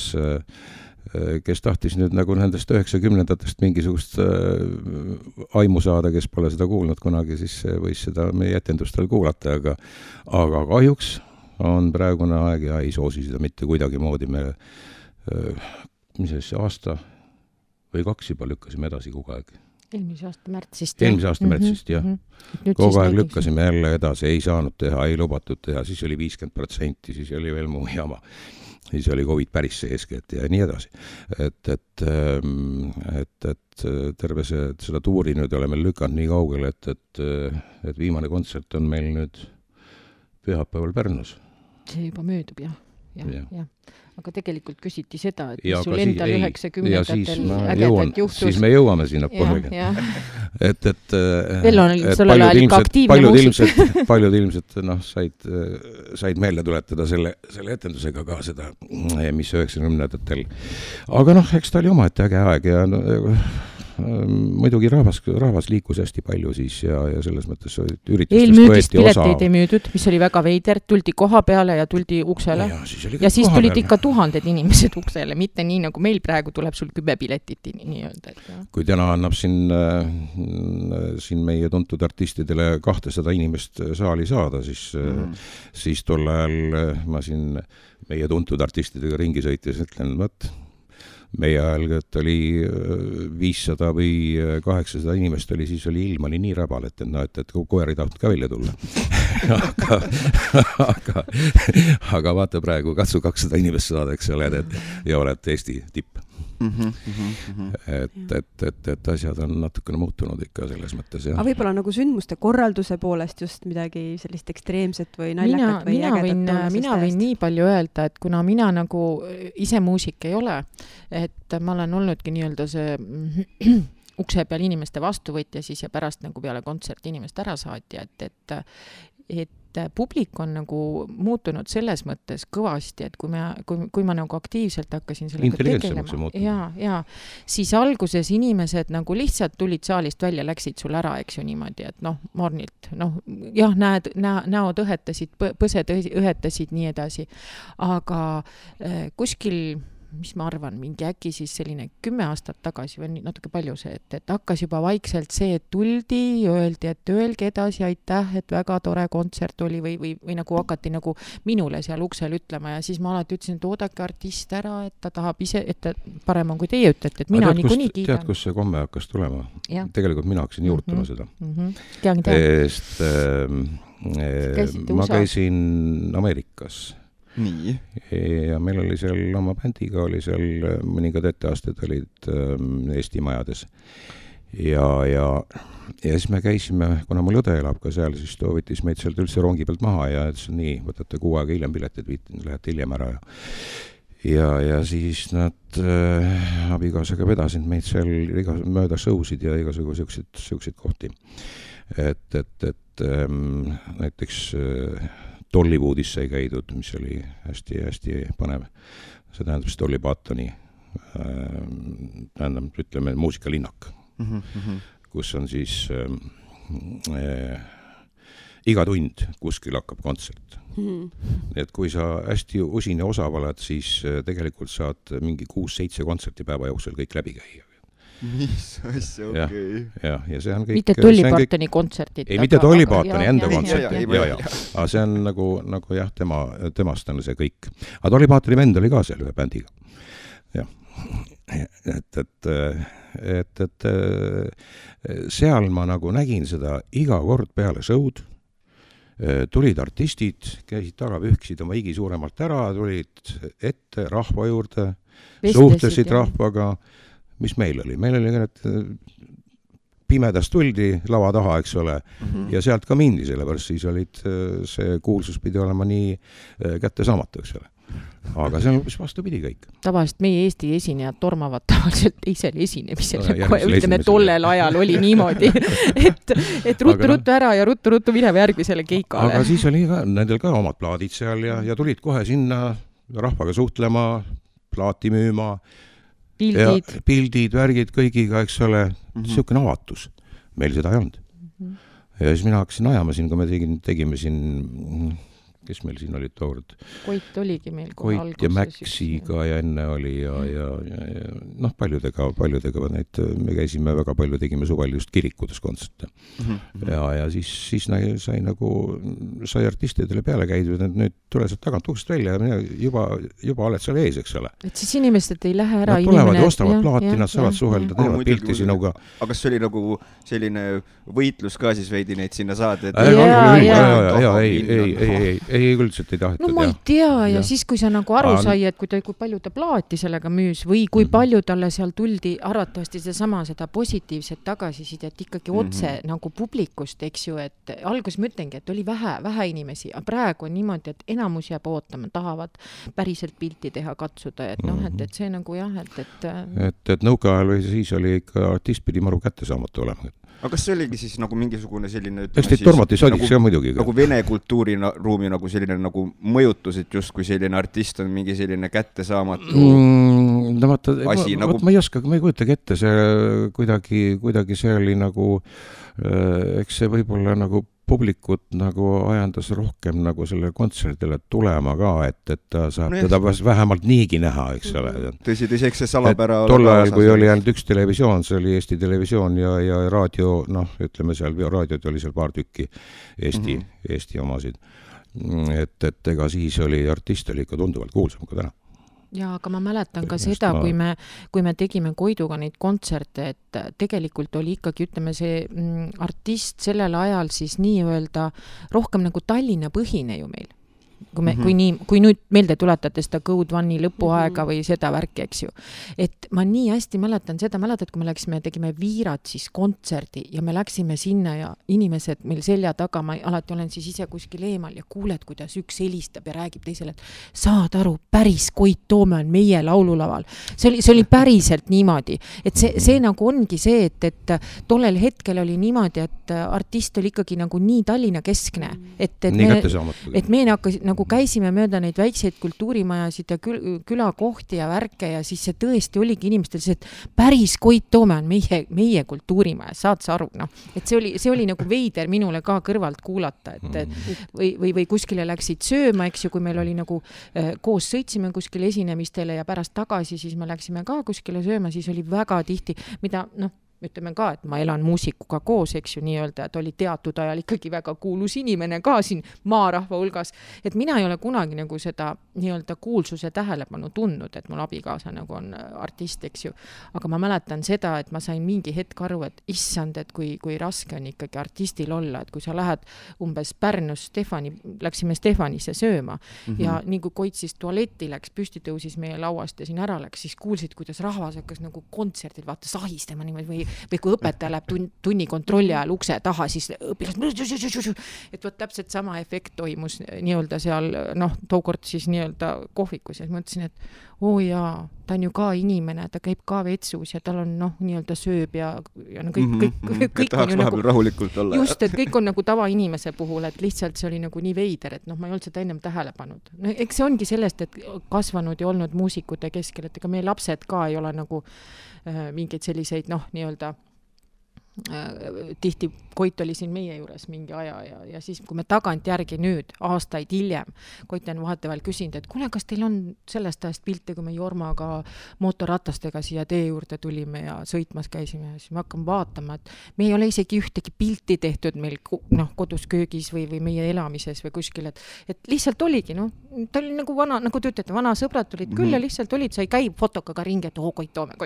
kes tahtis nüüd nagu nendest 90ndatest mingisugust aimu saada, kes pole seda kuulnud kunagi, siis võis seda meie etendustel kuulata, aga kahjuks on praegune aeg ja ei soosi seda mitte kuidagi moodi. Me aasta või 2 juba lükkasime edasi kogu aeg. Eelmise aasta märtsist. Jah. Kogu aeg lükkasime jälle edasi, ei saanud teha, ei lubatud teha, siis oli 50%, siis oli veel muu jama. Siis oli COVID päris seesket ja nii edasi. Et terve seda tuuri nüüd oleme lükanud nii kaugele, et viimane kontsert on meil nüüd pühapäeval Pärnus. See juba möödub, jah. Aga tegelikult küsiti seda, et mis sul endal 90-ndatel ägedalt juhtus. Siis me jõuame sinna poolegi. Veel on sellel ajal ikka aktiivne muusik. Paljud ilmselt said meelde tuletada selle etendusega ka seda, mis 90-ndatel. Aga eks ta oli omaette äge aeg ja muidugi rahvas liikus hästi palju siis ja selles mõttes üritustest võeti osa. Pileteid ei müüdud, mis oli väga veider, tuldi koha peale ja tuldi uksele. Ja siis tulid ikka 1000 inimesed uksele, mitte nii nagu meil praegu tuleb sul 10 piletit nii öelda. Kui täna annab siin meie tuntud artistidele 200 inimest saali saada, siis tol ajal ma siin meie tuntud artistidega ringi sõites ütlen, meie ajal, et oli 500 või 800 inimest oli, siis oli ilm oli nii räbal, et koer ei tahtnud ka välja tulla. aga vaata praegu, katsu 200 inimest saada, eks ole, ja oled Eesti tipp. Et asjad on natukene muutunud ikka selles mõttes, jah. Aga võib-olla nagu sündmuste korralduse poolest just midagi sellist ekstreemset või naljakat või ägedat mina võin nii palju öelda, et kuna mina nagu ise muusik ei ole, et ma olen olnudki nii-öelda see ukse peal inimeste vastuvõtja siis ja pärast nagu peale kontserti inimest ära saatja, et publik on nagu muutunud selles mõttes kõvasti, et kui ma nagu aktiivselt hakkasin sellega tegelema, ja siis alguses inimesed nagu lihtsalt tulid saalist välja, läksid sul ära, eks ju niimoodi, et mornilt, jah, näod õhetasid, põsed õhetasid, nii edasi, aga kuskil mis ma arvan, mingi äkki siis selline 10 aastat tagasi või natuke palju see, et hakkas juba vaikselt see, et tuldi, öeldi, et öelge edasi, aitäh, et väga tore kontsert oli või nagu hakati nagu minule seal uksel ütlema ja siis ma alati ütlesin, et oodake artist ära, et ta tahab ise, et ta parem on, kui teie ütlete, et mina niikuinii kiidan. Tead, kus see komme hakkas tulema? Tegelikult mina hakkasin juurtama seda. Ma käisin Ameerikas. Nii. Ja meil oli seal oma bändiga, oli seal mõningad etteasted olid Eesti majades. Ja siis me käisime, kuna mul õde elab ka seal, siis ta võttis meid sealt üldse rongi pealt maha ja ütles, nii, võtate 6 aega hiljem piletid, lähete hiljem ära. Ja siis nad abikaasaga vedasid meid seal mööda showsid ja igasuguseid kohti. Et näiteks Dollywoodis sai käidud, mis oli hästi panev. See tähendab siis Dolly Partoni, ütleme, muusikalinnak, kus on siis iga tund kuskil hakkab kontsert. Et kui sa hästi usin ja osav oled, siis tegelikult saad mingi 6-7 kontserti päeva jooksul kõik läbi käia. Mis asja, okei. Ja see on kõik... Mitte Dolly Partoni kontserdid. Ei, mitte Dolly Partoni enda kontsert. Aga see on nagu jah, temast on see kõik. Aga Dolly Partoni vend oli ka seal ühe bändiga. Jah. Et seal ma nagu nägin seda iga kord peale show'd. Tulid artistid, käisid taga, pühkisid oma higi suuremalt ära, tulid ette rahva juurde, suhtlesid rahvaga. Mis meil oli? Meil oli pimedast tuldi lava taha, eks ole, ja sealt ka mindi, sellepärast siis olid, see kuulsus pidi olema nii kättesaamatu, eks ole. Aga see on vastupidi kõik. Tavaliselt meie Eesti esinejad tormavad tavaliselt teisel esinemisel, ütleme, tollel ajal oli niimoodi, et ruttu ära ja ruttu minema järgmisele keikale. Aga siis oli ka, nendel ka omad plaadid seal ja tulid kohe sinna rahvaga suhtlema, plaati müüma, pildid, värgid kõigiga, eks ole, niisugune avatus. Meil seda ei olnud. Ja siis mina hakkasin ajama siin, kui me tegime siin, kes meil siin olid toord? Koit oligi meil kohe alguses. Koit ja Maxiga ja enne oli ja paljudega neid, me käisime väga palju, tegime suvel just kirikudes kontserte. Ja siis sai artistidele peale käidud, et nüüd tule sealt tagant uksest välja ja juba oled seal ees, eks ole. Et siis inimesed ei lähe ära. Nad tulevad ja ostavad plaati, nad saavad suhelda, teevad pilti sinuga. Aga kas see oli nagu selline võitlus ka siis veidi neid sinna saada? Ei, üldselt ei tahetud. No ma ei tea ja siis, kui sa nagu aru sai, et kui palju ta plaati sellega müüs või kui palju talle seal tuldi arvatavasti seda positiivset tagasisidet ikkagi otse nagu publikust, eks ju, et alguses ma ütlengi, et oli vähe inimesi, aga praegu on niimoodi, et enamus jääb ootama, tahavad päriselt pilti teha, katsuda, et see nagu jah, et nõukaajal või siis oli ikka artist pidi maru kättesaamatu olema. Aga kas see oligi siis nagu mingisugune selline... Eks teid tormati sodiks ka muidugi. Nagu vene kultuuriruumi nagu selline nagu mõjutus, et just kui selline artist on mingi selline kättesaamatu asi. Ma ei oska, ma ei kujutagi ette, see kuidagi see oli nagu, eks see võib-olla nagu publikut nagu ajandas rohkem nagu selle kontserdile tulema ka, et ta saab teda vähemalt niigi näha, eks ole. Tõsi, eks see salapära... Tol ajal, kui oli ainult üks televisioon, see oli Eesti televisioon ja raadio, ütleme seal, raadiod oli seal paar tükki Eesti omasid. Et ega siis oli artist oli ikka tunduvalt kuulsam kui täna. Ja aga ma mäletan ka seda, kui me tegime Koiduga neid kontserte, et tegelikult oli ikkagi, ütleme, see artist sellel ajal siis nii-öelda rohkem nagu Tallinna põhine ju meil. Kui nüüd meelde tuletate seda Code One'i lõpuaega või seda värki, eks ju. Et ma nii hästi mäletan seda, kui me tegime Viirat siis kontserdi ja me läksime sinna ja inimesed meil selja taga, ma alati olen siis ise kuskil eemal ja kuuled, kuidas üks helistab ja räägib teisele, et saad aru, päris Koit Toome on meie laululaval. See oli päriselt niimoodi, et see nagu ongi see, et tollel hetkel oli niimoodi, et artist oli ikkagi nagu nii Tallinna keskne, et me nagu käisime mööda neid väikseid kultuurimajasid ja külakohti ja värke ja siis see tõesti oligi inimestel see, et päris Koit Toome on meie kultuurimaja, saad sa aru, noh. Et see oli nagu veider minule ka kõrvalt kuulata, või kuskile läksid sööma, eks ju, kui meil oli nagu koos sõitsime kuskile esinemistele ja pärast tagasi, siis me läksime ka kuskile sööma, siis oli väga tihti, mida, ütleme ka, et ma elan muusikuga koos, eks ju, nii-öelda, et oli teatud ajal ikkagi väga kuulus inimene ka siin maarahva hulgas, et mina ei ole kunagi nagu seda nii-öelda kuulsuse tähelepanu tundnud, et mul abikaasa nagu on artist, eks ju, aga ma mäletan seda, et ma sain mingi hetk aru, et issand, et kui raske on ikkagi artistil olla, et kui sa lähed umbes Pärnus läksime Stefanisse sööma ja nii kui Koit siis tualetti läks, püsti tõusis meie lauast ja siin ära läks, siis kuulsid, kuidas rahvas hakkas nagu kontserdil vaata sahistama niimoodi või kui õpetaja läheb tunni kontrolli ajal ukse taha, siis õpilased, et võt täpselt sama efekt toimus nii-öelda seal, tookord siis nii-öelda kohvikus ja mõtlesin, et jaa, ta on ju ka inimene, ta käib ka vetsus ja tal on nii-öelda sööb ja kõik tahaks vahepeal rahulikult olla. Just, et kõik on nagu tavainimese puhul, et lihtsalt see oli nagu nii veider, et ma ei olnud seda ennem tähele pannud. Eks see ongi sellest, et kasvanud ja olnud muusikute keskel, et ega meie lapsed ka ei ole nagu mingeid selliseid, nii-öelda tihti Koit oli siin meie juures mingi aja ja siis, kui me tagant järgi nüüd, aastaid hiljem, Koit on vahetevahel küsinud, et kuule, kas teil on sellest ajast pilte, kui me Jormaga mootorratastega siia tee juurde tulime ja sõitmas käisime ja siis me hakkame vaatama, et me ei ole isegi ühtegi pilti tehtud meil kodus köögis või meie elamises või kuskil, et lihtsalt oligi, ta oli nagu vana, nagu te ütlete, vana sõbrad tulid küll ja lihtsalt olid, sa ei käi fotokaga ringi, et Koit Toome,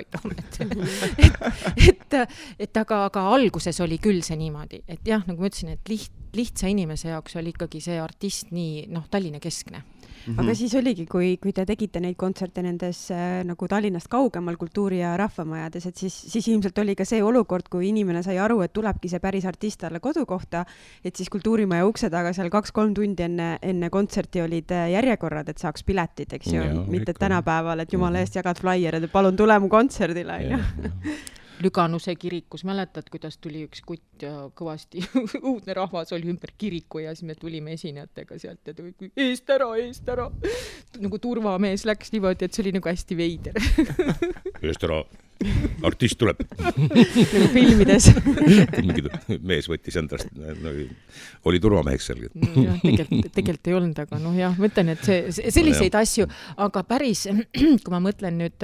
aga alguses oli küll see niimoodi, et jah, nagu ma ütlesin, et lihtsa inimese jaoks oli ikkagi see artist nii, Tallinna keskne. Aga siis oligi, kui te tegite neid kontserte nendes nagu Tallinnast kaugemal kultuuri- ja rahvamajades, et siis ilmselt oli ka see olukord, kui inimene sai aru, et tulebki see päris artist talle kodukohta, et siis kultuurimaja ukse taga seal 2-3 tundi enne kontserti olid järjekorrad, et saaks piletid, eks ju, mitte tänapäeval, et jumala eest jagad flyerid, et palun tule mu kontserdile. Lüganuse kirikus, mäletad, kuidas tuli üks kutt ja kõvasti uudne rahvas oli ümber kiriku ja siis me tulime esinejatega sealt ja eest ära. Nagu turvamees läks niimoodi, et see oli nagu hästi veider. Eest ära, artist tuleb. Nagu filmides. Mees võttis endast, oli turvameheks seal. Tegelikult ei olnud, aga jah, mõtlen, et selliseid asju, aga päris, kui ma mõtlen nüüd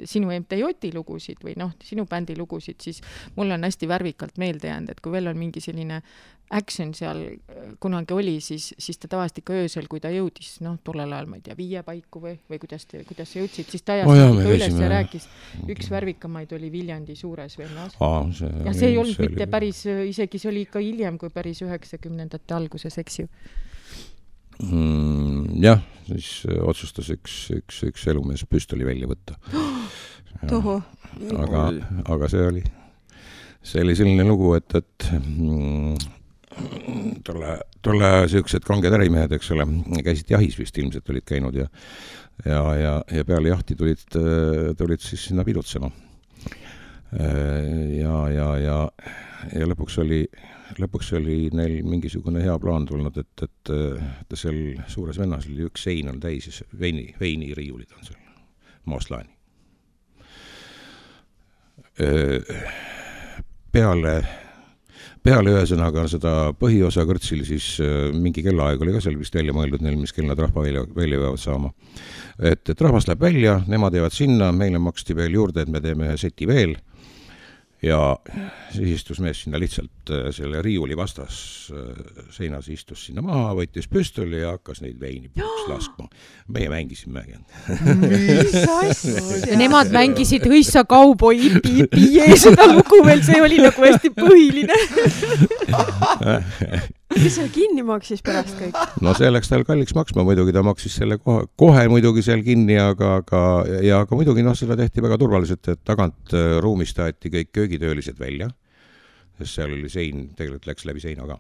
sinu MTJ lugusid või sinu bändi lugusid, siis mul on hästi värvikalt meelde jäänud, et kui veel on mingi selline action seal kunagi oli, siis ta tavaliselt ikka öösel, kui ta jõudis, tollel ajal, ma ei tea, 5 paiku või kuidas sa jõudsid, siis ta ajas üles ja rääkis. Üks värvikamaid oli Viljandi Suures vennas. Ja see ei olnud mitte päris, isegi see oli ikka hiljem kui päris 90ndate alguses, eks ju. Jah, siis otsustas üks elumees püstoli välja võtta. Toho. Aga see oli selline lugu, et tolle siuksed kanged ärimehed, eks ole, käisid jahis vist ilmselt olid käinud ja peale jahti tulid siis sinna pidutsema. Ja lõpuks oli neil mingisugune hea plaan tulnud, et seal Suures vennas oli üks sein on täis, veiniriiulid on seal, mooslaani. Peale ühesõnaga seda põhiosa kõrtsil siis mingi kellaaeg oli ka seal vist välja mõeldud neil, mis kell nad rahva välja peavad saama. Et rahvas läheb välja, nemad jäävad sinna, meile maksti veel juurde, et me teeme seti veel ja siis istus mees sinna lihtsalt selle riiuli vastas seinas, istus sinna maha, võttis püstoli ja hakkas neid veini puuks laskma. Meie mängisime. Mis asja? Ja nemad mängisid Hõissa kauboi ipi seda lugu veel, see oli nagu hästi põhiline. Kes seal kinni maksis pärast kõik? No see läks tal kalliks maksma, muidugi ta maksis selle kohe muidugi seal kinni, aga muidugi seda tehti väga turvaliselt, et tagant ruumist aeti kõik köögitöölised välja, sest seal oli sein, tegelikult läks läbi seina ka.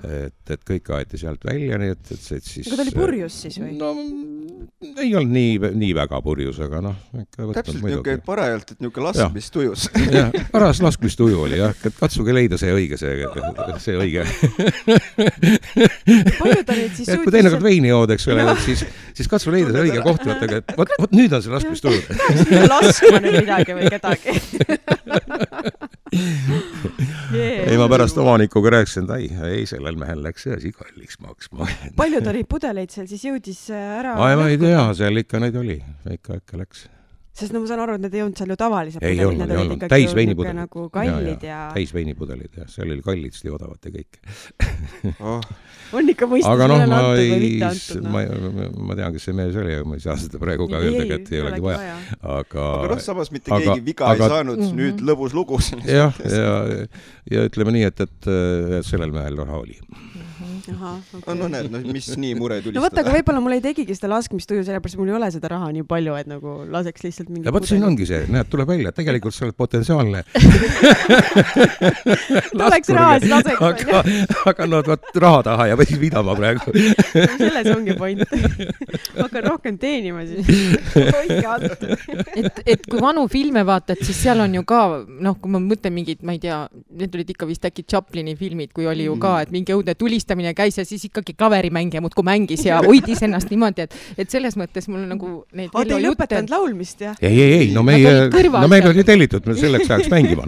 Et kõik aeti sealt välja, nii et siis... Aga ta oli purjus siis või? No ei olnud nii väga purjus, aga täpselt niuke parajalt, et niuke laskmistujus. Jah, paras laskmistuju oli, jah, et katsuge leida see õige. Palju ta neid siis suutis? Kui teinekord veini joodeks veel, siis katsu leida see õige koht, et võt nüüd on see laskmistuju. Laskma nüüd midagi või kedagi. Ei, ma pärast omanikuga rääkisin, et ei, sellel mehel läks see asi kalliks maksma. Palju ta neid pudeleid seal siis jõudis ära? Ma ei tea, seal ikka neid oli, ikka läks. Sest no ma saan aru, et need ei olnud seal ju tavalised pudelid. Ei olnud, täis veinipudelid. Nagu kallid ja... Täis veinipudelid, jah, seal oli kallid, siis odavad ja kõik. On ikka mõistus üle antud või mitte antud? Ma tean, kes see mees oli, aga ma ei saa seda praegu ka öelda, et ei olegi vaja. Aga samas mitte keegi viga ei saanud, nüüd lõbus lugu. Jah, ja ütleme nii, et sellel mehel raha oli. Aha, okay. No näed, mis nii mure tulistada. No võtta, aga võib-olla mul ei tegigi seda laskmistuju, sellepärast mul ei ole seda raha nii palju, et nagu laseks lihtsalt mingi... Ja võt siin ongi see, näed, tuleb välja, tegelikult sa oled potentsiaalne. Tuleks raha, siis laseks. Aga no raha taha ja võis vidama praegu. Selles ongi point. Hakkan rohkem teenima siis. Hoidke alt. Et kui vanu filme vaatad, siis seal on ju ka, kui ma mõtlen mingid, ma ei tea, need olid ikka vist äkki Chaplini filmid, kui oli ju ka, et mingi õudne tulistamine käis ja siis ikkagi klaverimängija muudkui mängis ja hoidis ennast niimoodi, et selles mõttes mul nagu neid Vello jutte... Ei lõpetanud laulmist, jah? Ei, no meil oli tellitud, me selleks ajaks mängima.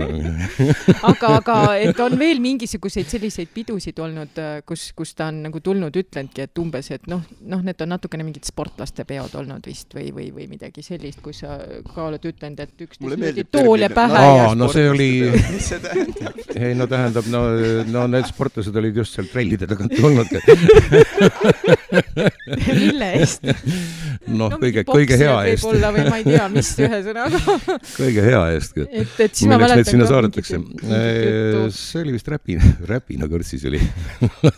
Aga et on veel mingisuguseid selliseid pidusid olnud, kus ta on nagu tulnud, ütlenudki, et umbes, et need on natukene mingid sportlaste peod olnud vist või midagi sellist, kus sa ka oled ütlenud, et üks tool ja pähe. No see oli... Mis see tähendab? Ei, no tähendab, no need sportlased olid just seal trellide tagant tulnud. Mille eest? Kõige hea eest. Võib-olla või ma ei tea, mis ühe sõnaga. Kõige hea eest. Milleks neid sinna saadetakse? See oli vist räpina kõrtsis oli.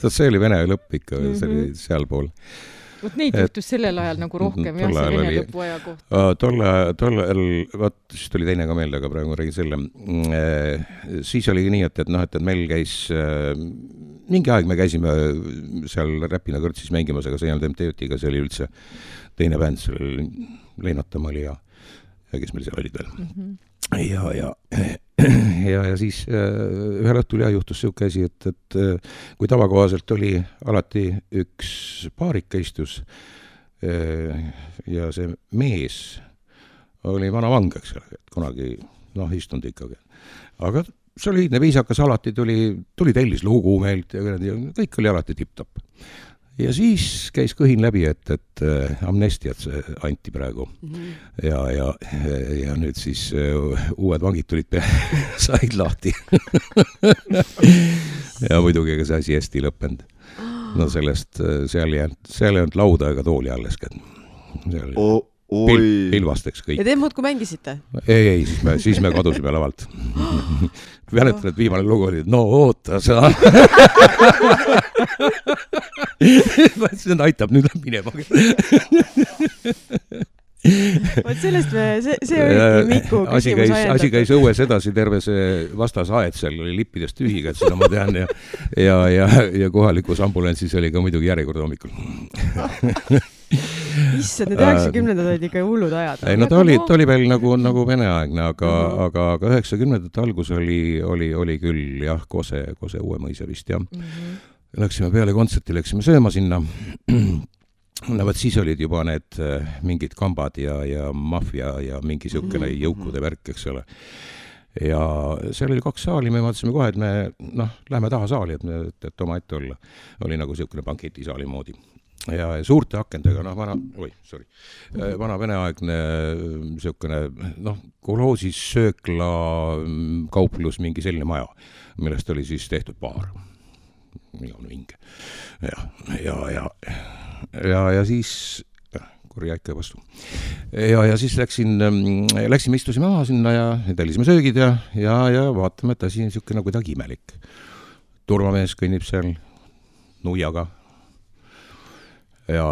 See oli vene lõpp ikka, see oli seal pool. Neid juhtus sellel ajal nagu rohkem, jah, see vene lõpu aja kohta. Tol ajal, siis tuli teine ka meelde, aga praegu ma räägin selle. Siis oli nii, et meil käis, mingi aeg me käisime seal Räpina kõrtsis mängimas, aga see ei olnud MTÜ-tiga, see oli üldse teine bänd, see oli Leinatamaa oli ja kes meil seal olid veel. Ja siis ühel õhtul juhtus siuke asi, et kui tavakohaselt oli alati üks paarika istus ja see mees oli vana vang, eks ole, et kunagi istunud ikkagi. Aga soliidne viisakas alati tuli tellis lugu meilt ja kõik oli alati tipp-topp. Ja siis käis kõhin läbi, et amnestiat see anti praegu. Ja nüüd siis uued vangid tulid said lahti. Ja muidugi see asi hästi lõppenud. No sellest, seal ei olnud lauda ega tooli alles. Pilvasteks kõik. Ja te muudkui mängisite? Ei, siis me kadusime lavalt. Mäletan, et viimane lugu oli, no oota sa. See aitab nüüd minema. Vot sellest see oligi Miku küsimus ajendatud. Asi käis õues edasi, terve see vastasaed seal oli lippidest tühiga, et seda ma tean ja kohalikus ambulantsis oli ka muidugi järjekord hommikul. Issad, need 90-ndad olid ikka hullud ajad. Ei, no ta oli veel nagu veneaegne, aga 90-ndate algus oli küll jah, Kose uue mõisa vist jah. Läksime peale kontserti, läksime sööma sinna. No võt siis olid juba need mingid kambad ja maffia ja mingi siukene jõukude värk, eks ole. Ja seal oli 2 saali, me vaatasime kohe, et me lähme taha saali, et oma ette olla. Oli nagu siukene banketisaali moodi. ja suurte akendega, vana veneaegne niisugune, kolhoosis söökla kauplus, mingi selline maja, millest oli siis tehtud baar. Vinge. Ja siis korja ikka vastu. Ja siis läksime, istusime maha sinna ja tellisime söögid ja vaatame, et asi on niisugune kuidagi imelik. Turvamees kõnnib seal nuiaga ja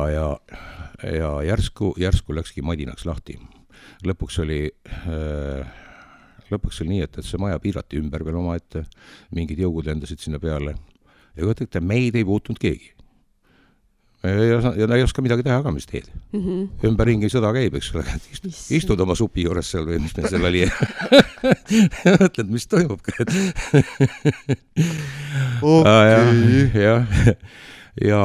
järsku läkski madinaks lahti. Lõpuks oli nii, et see maja piirati ümber veel omaette, mingid jõugud lendasid sinna peale ja võtate, meid ei puutunud keegi. Ja ei oska midagi teha ka, mis teed. Ümberringi sõda käib, eks ole, istud oma supi juures seal või mis meil seal oli. Mõtled, mis toimub ka. Ja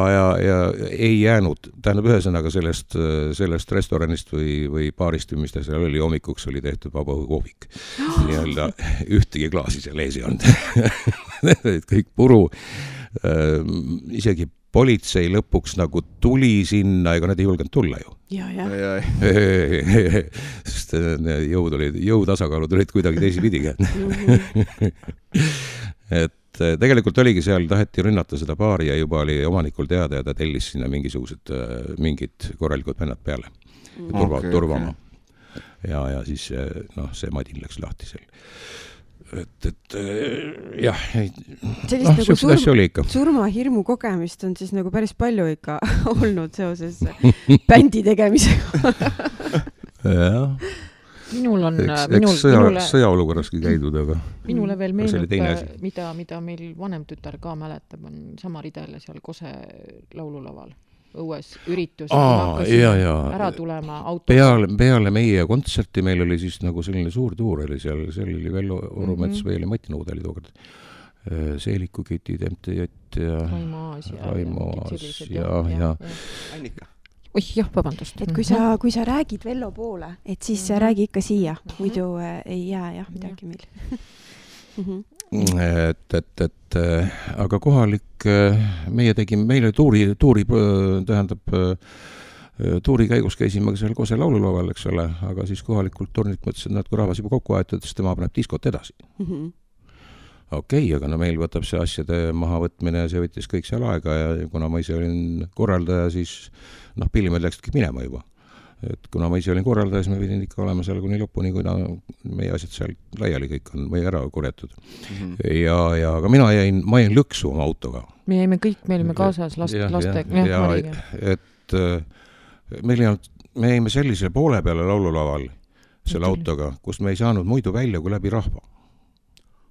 ei jäänud, tähendab ühesõnaga sellest restoranist või baarist, mis ta seal oli, hommikuks oli tehtud vabaõhukohvik. Nii-öelda ühtegi klaasi seal ees ei olnud. Kõik puru, isegi politsei lõpuks nagu tuli sinna, ega nad ei julgenud tulla ju. Sest jõutasakaalud olid kuidagi teisipidiga. Et tegelikult oligi seal, taheti rünnata seda baari ja juba oli omanikul teada ja ta tellis sinna mingid korralikud vennad peale. Turvama. Ja siis see madin läks lahti seal. Et jah, sellist nagu surmahirmu kogemist on siis nagu päris palju ikka olnud seoses bändi tegemisega. Jah. Minul on... sõjaolukorraski käidud, aga... Minule veel meenub, mida meil vanem tütar ka mäletab, on sama ridele seal Kose laululaval. Õues üritus, ära tulema auto. Peale meie kontserti meil oli siis nagu selline suur tuur oli seal oli Vello Orumets või oli Mati Nõud oli tookord. Seeliku Kitid, MTJ ja Raimo Aas ja Annika. Jah, vabandust. Et kui sa räägid Vello poole, et siis räägi ikka siia, muidu ei jää midagi meil. Aga kohalik, meil oli tuuri käigus käisime seal Kose laululaval, eks ole, aga siis kohalikult turnilt mõtlesid, et kui rahvas juba kokku aetud, siis tema paneb diskot edasi. Okei, aga meil võtab see asjade mahavõtmine ja see võttis kõik seal aega ja kuna ma ise olin korraldaja, siis pillimed läksidki minema juba. Et kuna ma ise olin korraldaja, siis me pidin ikka olema seal kuni lõpuni, kui meie asjad seal laiali kõik on või ära korjatud. Aga ma jäin lõksu oma autoga. Me olime kaasas lastega. Et me jäime sellisele poole peale laululaval selle autoga, kus me ei saanud muidu välja kui läbi rahva.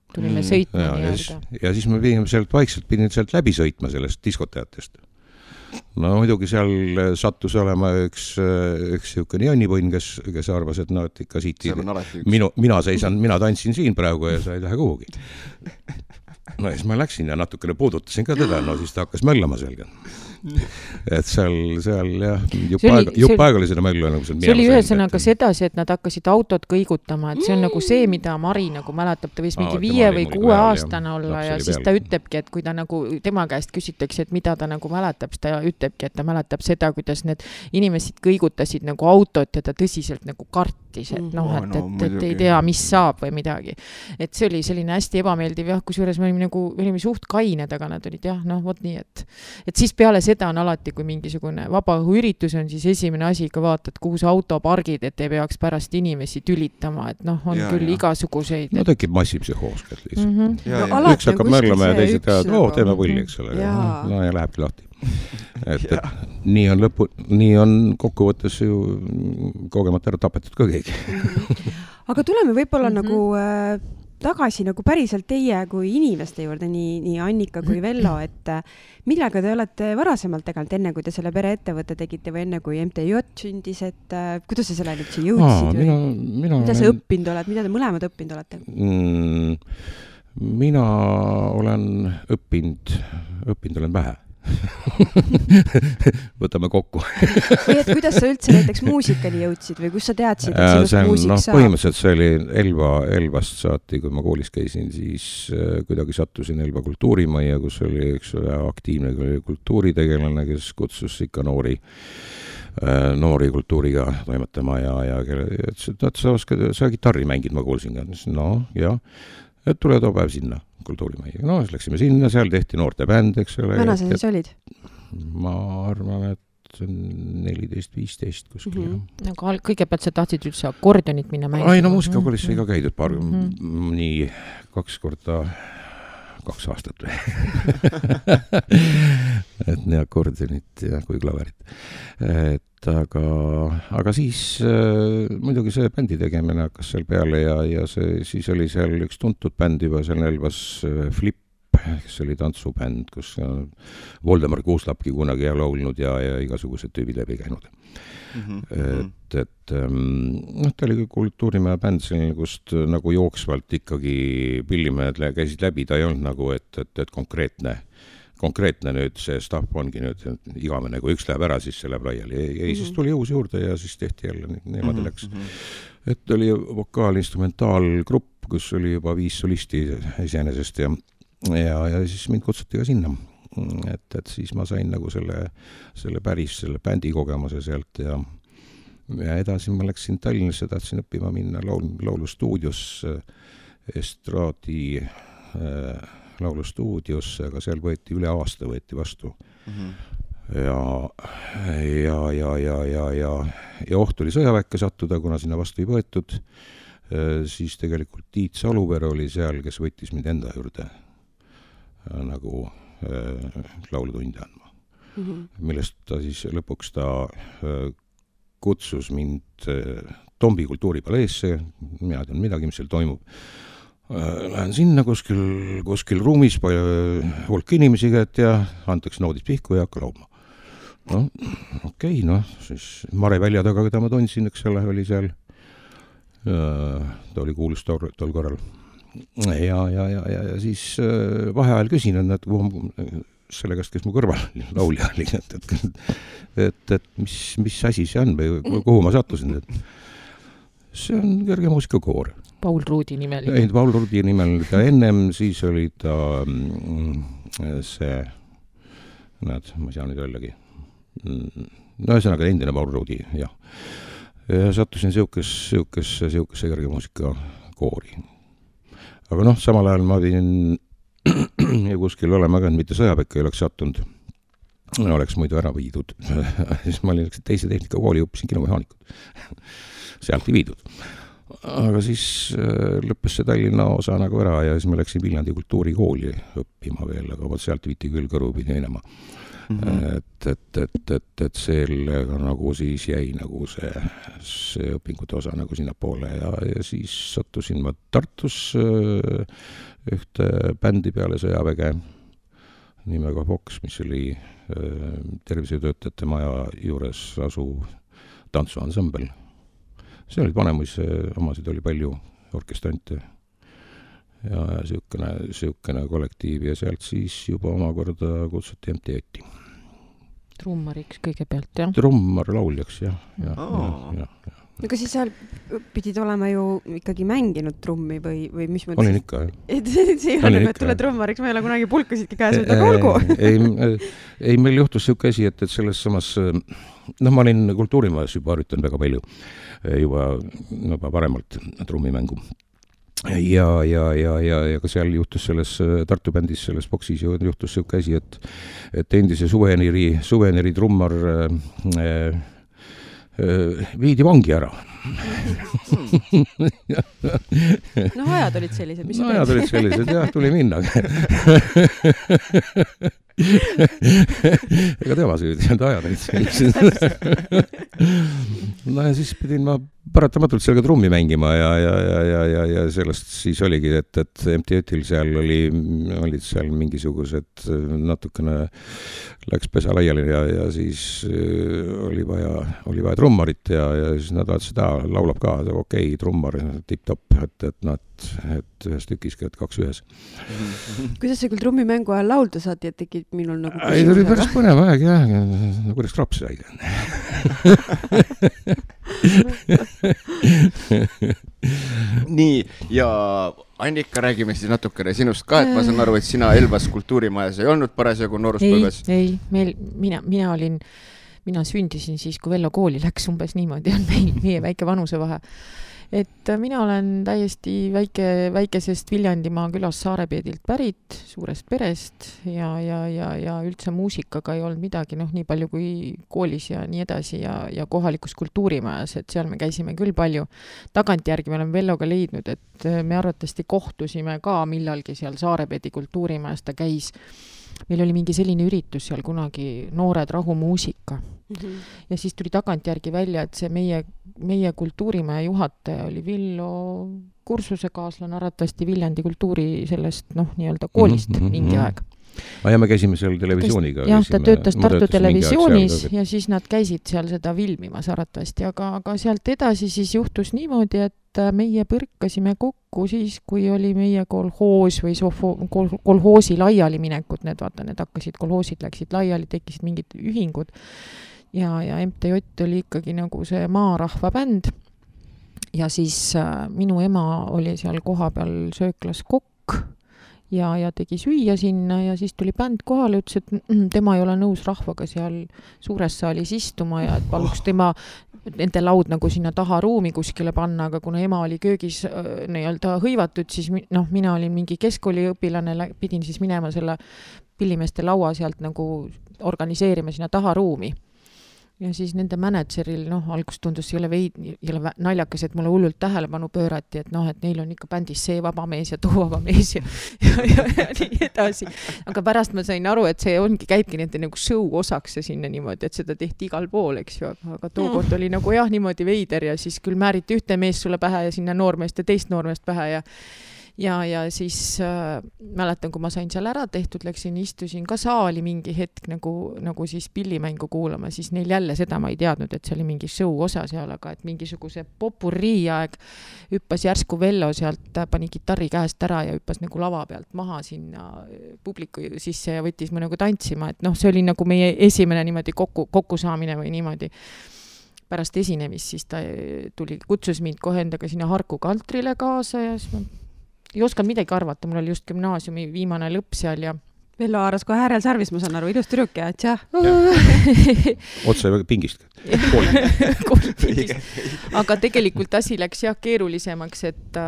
Tulime sõitma ja siis me pidin sealt läbi sõitma sellest diskoteatest. Muidugi seal sattus olema üks niisugune jonnipõnn, kes arvas, et et ikka siit mina tantsin siin praegu ja sa ei lähe kuhugi. Siis ma läksin ja natukene puudutasin ka teda, siis ta hakkas möllama selga. Et seal jah, jupp aega oli seda möllu. See oli ühesõnaga sedasi, et nad hakkasid autot kõigutama, et see on nagu see, mida Mari nagu mäletab, ta võis mingi 5 või 6 aastane olla ja siis ta ütlebki, et kui ta nagu tema käest küsitakse, et mida ta nagu mäletab, siis ta ütlebki, et ta mäletab seda, kuidas need inimesed kõigutasid nagu autot ja ta tõsiselt nagu kartis, et ei tea, mis saab või midagi. Et see oli selline hästi ebameeldiv, kusjuures me olime suht kained, aga nad olid vot nii, et siis peale seda on alati, kui mingisugune vabaõhuüritus on, siis esimene asi ikka vaatad, kuhu see auto pargid, et ei peaks pärast inimesi tülitama, et on küll igasuguseid. Tekib massipsühhoos lihtsalt. Üks hakkab möllama ja teised teavad, teeme pulli, eks ole. Ja lähebki lahti. Nii on kokkuvõttes ju kogemata ära tapetud ka keegi. Aga tuleme võib-olla nagu tagasi nagu päriselt teie kui inimeste juurde, nii Annika kui Vello, et millega te olete varasemalt teganud, enne kui te selle pereettevõtte tegite või enne kui MTJ sündis, et kuidas sa selle nüüd siia jõudsid? Mida sa õppinud oled, mida te mõlemad õppinud olete? Mina olen õppinud olen vähe. võtame kokku. Või et kuidas sa üldse näiteks muusikani jõudsid või kus sa teadsid, et sinust muusik saab? Põhimõtteliselt see oli Elvast saati, kui ma koolis käisin, siis kuidagi sattusin Elva kultuurimajja, kus oli üks aktiivne kultuuritegelane, kes kutsus ikka noori kultuuriga toimetama ja ütles, et sa kitarri mängid, ma kuulsin ka. No, jah, et tule too päev sinna kultuurimajja. No, siis läksime sinna, seal tehti noorte bänd, eks ole. Vana sa siis olid? Ma arvan, et 14-15 kuskil. Aga kõigepealt sa tahtsid üldse akordionit minna mängima? Ai, no muusikakoolis sai ka käidud nii 2 aastat või. Et nii akordionit ja kui klaverit. Aga siis muidugi see bändi tegemine hakkas seal peale ja siis oli seal üks tuntud bänd juba seal Elvas Flip, kes oli tantsubänd, kus Voldemar Kuuslapki kunagi laulnud ja igasugused tüübid läbi käinud. Ta oli kultuurimaja bänd selline, kust nagu jooksvalt ikkagi pillimehed käisid läbi, ta ei olnud nagu, et konkreetne nüüd see staff ongi nüüd igavene, kui üks läheb ära, siis see läheb laiali. Ei, siis tuli uus juurde ja siis tehti jälle niimoodi läks. Et oli vokaal-instrumentaalgrupp, kus oli juba 5 solisti iseenesest ja siis mind kutsuti ka sinna. Et siis ma sain nagu selle bändi kogemuse sealt ja edasi ma läksin Tallinnasse, tahtsin õppima minna laulustuudios, estraadi laulustuudiosse, aga seal võeti üle aasta vastu. Ja oht oli sõjaväkke sattuda, kuna sinna vastu ei võetud. Siis tegelikult Tiit Saluver oli seal, kes võttis mind enda juurde nagu laulutunde andma. Millest ta siis lõpuks kutsus mind Tombi kultuuripaleesse, mina tean midagi, mis seal toimub. Lähen sinna kuskil ruumis, hulk inimesi käed ja antakse noodid pihku ja hakka laulma. No, okei, siis Mare Välja taga, keda ma tundsin, eks ole, oli seal. Ta oli kuulus tol korral. Ja siis vaheajal küsin, et selle käest, kes mu kõrval laulja oli, et mis asi see on või kuhu ma sattusin, et see on kerge muusikakoor. Paul Ruudi nimel. Ei, Paul Ruudi nimel ta ennem, siis oli ta see, ma ei saa nüüd öeldagi. No ühesõnaga endine Paul Ruudi, jah. Ja sattusin siukesse kerge muusikakoori. Aga samal ajal ma pidin kuskil olema ka, mitte sõjaväkke ei oleks sattunud. Oleks muidu ära viidud. Siis ma olin teise tehnikakooli, õppisin kinomehaanikut. Sealt ei viidud. Aga siis lõppes see Tallinna osa nagu ära ja siis ma läksin Viljandi kultuurikooli õppima veel, aga sealt viiti küll kõrvu pidi minema. Et sellega nagu siis jäi nagu see õpingute osa nagu sinna poole ja siis sattusin ma Tartus ühte bändi peale sõjaväge nimega Fox, mis oli tervishoiutöötajate maja juures asuv tantsuansambel. See olid Vanemuise omasid oli palju orkestrante ja siukene kollektiiv ja sealt siis juba omakorda kutsuti MTÜ-ti. Trummariks kõigepealt, jah? Trummar lauljaks, jah. Aga siis seal pidid olema ju ikkagi mänginud trummi või mis mõttes? Olin ikka, jah. See ei ole, et tule trummariks, ma ei ole kunagi pulkasidki käes, aga olgu. Ei, meil juhtus siuke asi, et selles samas, ma olin kultuurimajas juba harjutan väga palju, juba paremalt trummimängu. Ja ka seal juhtus selles Tartu bändis, selles boksis juhtus siuke asi, et endise suveneri trummar viidi vangi ära. Ajad olid sellised, mis ajad olid sellised, jah, tuli minna. Ega tema süüdi, ajad olid sellised. Ja siis pidin ma paratamatult seal ka trummi mängima ja sellest siis oligi, et MTÜ-til seal olid seal mingisugused natukene läks pesa laiali ja siis oli vaja trummarit ja siis nad vaatasid, et laulab ka, okei, trummar, tipp-topp, et ühes tükiski, et 2 ühes. Kuidas see küll trummimängu ajal laulda saati, et tekib minul nagu ei, ta oli päris põnev aeg, jah, kuidas kraps sai. Nii, ja Annika, räägime siis natukene sinust ka, et ma saan aru, et sina Elvas kultuurimajas ei olnud parasjagu nooruspõlves. Ei, mina sündisin siis, kui Vello kooli läks, umbes niimoodi on meie väike vanusevahe. Et mina olen täiesti väikesest Viljandimaa külas Saarepeedilt pärit, suurest perest ja üldse muusikaga ei olnud midagi, nii palju kui koolis ja nii edasi ja kohalikus kultuurimajas, et seal me käisime küll palju. Tagantjärgi me oleme Velloga leidnud, et me arvatavasti kohtusime ka millalgi seal Saarepeedi kultuurimajas, ta käis. Meil oli mingi selline üritus seal kunagi Noored rahumuusika. Ja siis tuli tagantjärgi välja, et see meie kultuurimaja juhataja oli Villo kursusekaaslane arvatavasti Viljandi kultuuri sellest nii-öelda koolist mingi aeg. Ja me käisime seal televisiooniga. Jah, ta töötas Tartu televisioonis ja siis nad käisid seal seda filmimas arvatavasti, aga sealt edasi siis juhtus niimoodi, et meie põrkasime kokku siis, kui oli meie kolhoos või kolhoosi laiali minekud, need hakkasid, kolhoosid läksid laiali, tekkisid mingid ühingud ja MTJ oli ikkagi nagu see maarahva bänd ja siis minu ema oli seal koha peal sööklas kokk ja tegi süüa sinna ja siis tuli bänd kohale, ütles, et tema ei ole nõus rahvaga seal suures saalis istuma ja et paluks tema nende laud nagu sinna taha ruumi kuskile panna, aga kuna ema oli köögis nii-öelda hõivatud, siis mina olin mingi keskkooliõpilane, pidin siis minema selle pillimeeste laua sealt nagu organiseerima sinna taha ruumi. Ja siis nende mänedžeril, algus tundus jõle naljakas, et mulle hullult tähelepanu pöörati, et neil on ikka bändis see vaba mees ja too vaba mees ja nii edasi. Aga pärast ma sain aru, et see käibki nende nagu show osaks ja sinna niimoodi, et seda tehti igal pool, eks ju, aga tookord oli nagu niimoodi veider ja siis küll määriti ühte mees sulle pähe ja sinna noormeest ja teist noormeest pähe ja siis mäletan, kui ma sain seal ära tehtud, istusin ka saali mingi hetk nagu siis pillimängu kuulama, siis neil jälle seda ma ei teadnud, et see oli mingi show osa seal, aga et mingisuguse popurrii aeg hüppas järsku Vello sealt, pani kitarri käest ära ja hüppas nagu lava pealt maha sinna publiku sisse ja võttis mu nagu tantsima, et see oli nagu meie esimene niimoodi kokkusaamine või niimoodi. Pärast esinemist siis ta kutsus mind kohe endaga sinna Harku Kaltrile kaasa ja siis ma ei osanud midagi arvata, mul oli just gümnaasiumi viimane lõpp seal ja Vello haaras kohe äärel sarvis, ma saan aru, ilus tüdruk ja tšah. Otse pingist. Aga tegelikult asi läks keerulisemaks, et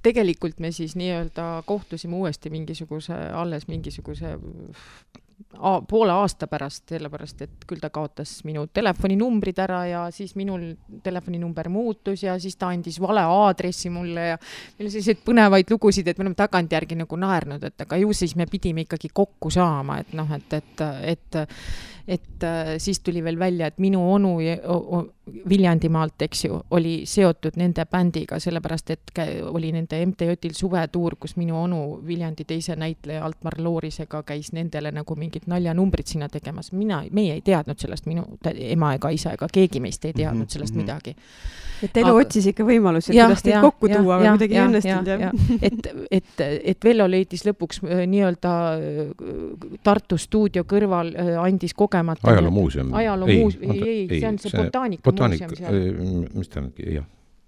tegelikult me siis nii-öelda kohtusime uuesti alles mingisuguse poole aasta pärast, sellepärast, et küll ta kaotas minu telefoninumbrid ära ja siis minul telefoninumber muutus ja siis ta andis vale aadressi mulle ja meil on selliseid põnevaid lugusid, et me oleme tagantjärgi nagu naernud, et aga ju siis me pidime ikkagi kokku saama, et siis tuli veel välja, et minu onu Viljandimaalt, eks ju, oli seotud nende bändiga, sellepärast, et oli nende MTJ-il suvetuur, kus minu onu Viljandi teise näitleja Altmar Loorisega käis nendele nagu mingid naljanumbrid sinna tegemas. Meie ei teadnud sellest, minu ema ega isa ega keegi meist ei teadnud sellest midagi. Et elu otsis ikka võimalusi, et kuidas teid kokku tuua, aga midagi ei õnnestunud. Et Vello leidis lõpuks nii-öelda Tartu stuudio kõrval andis kogemata. Ajaloomuuseum. Ei, see on see botaanika muuseum seal.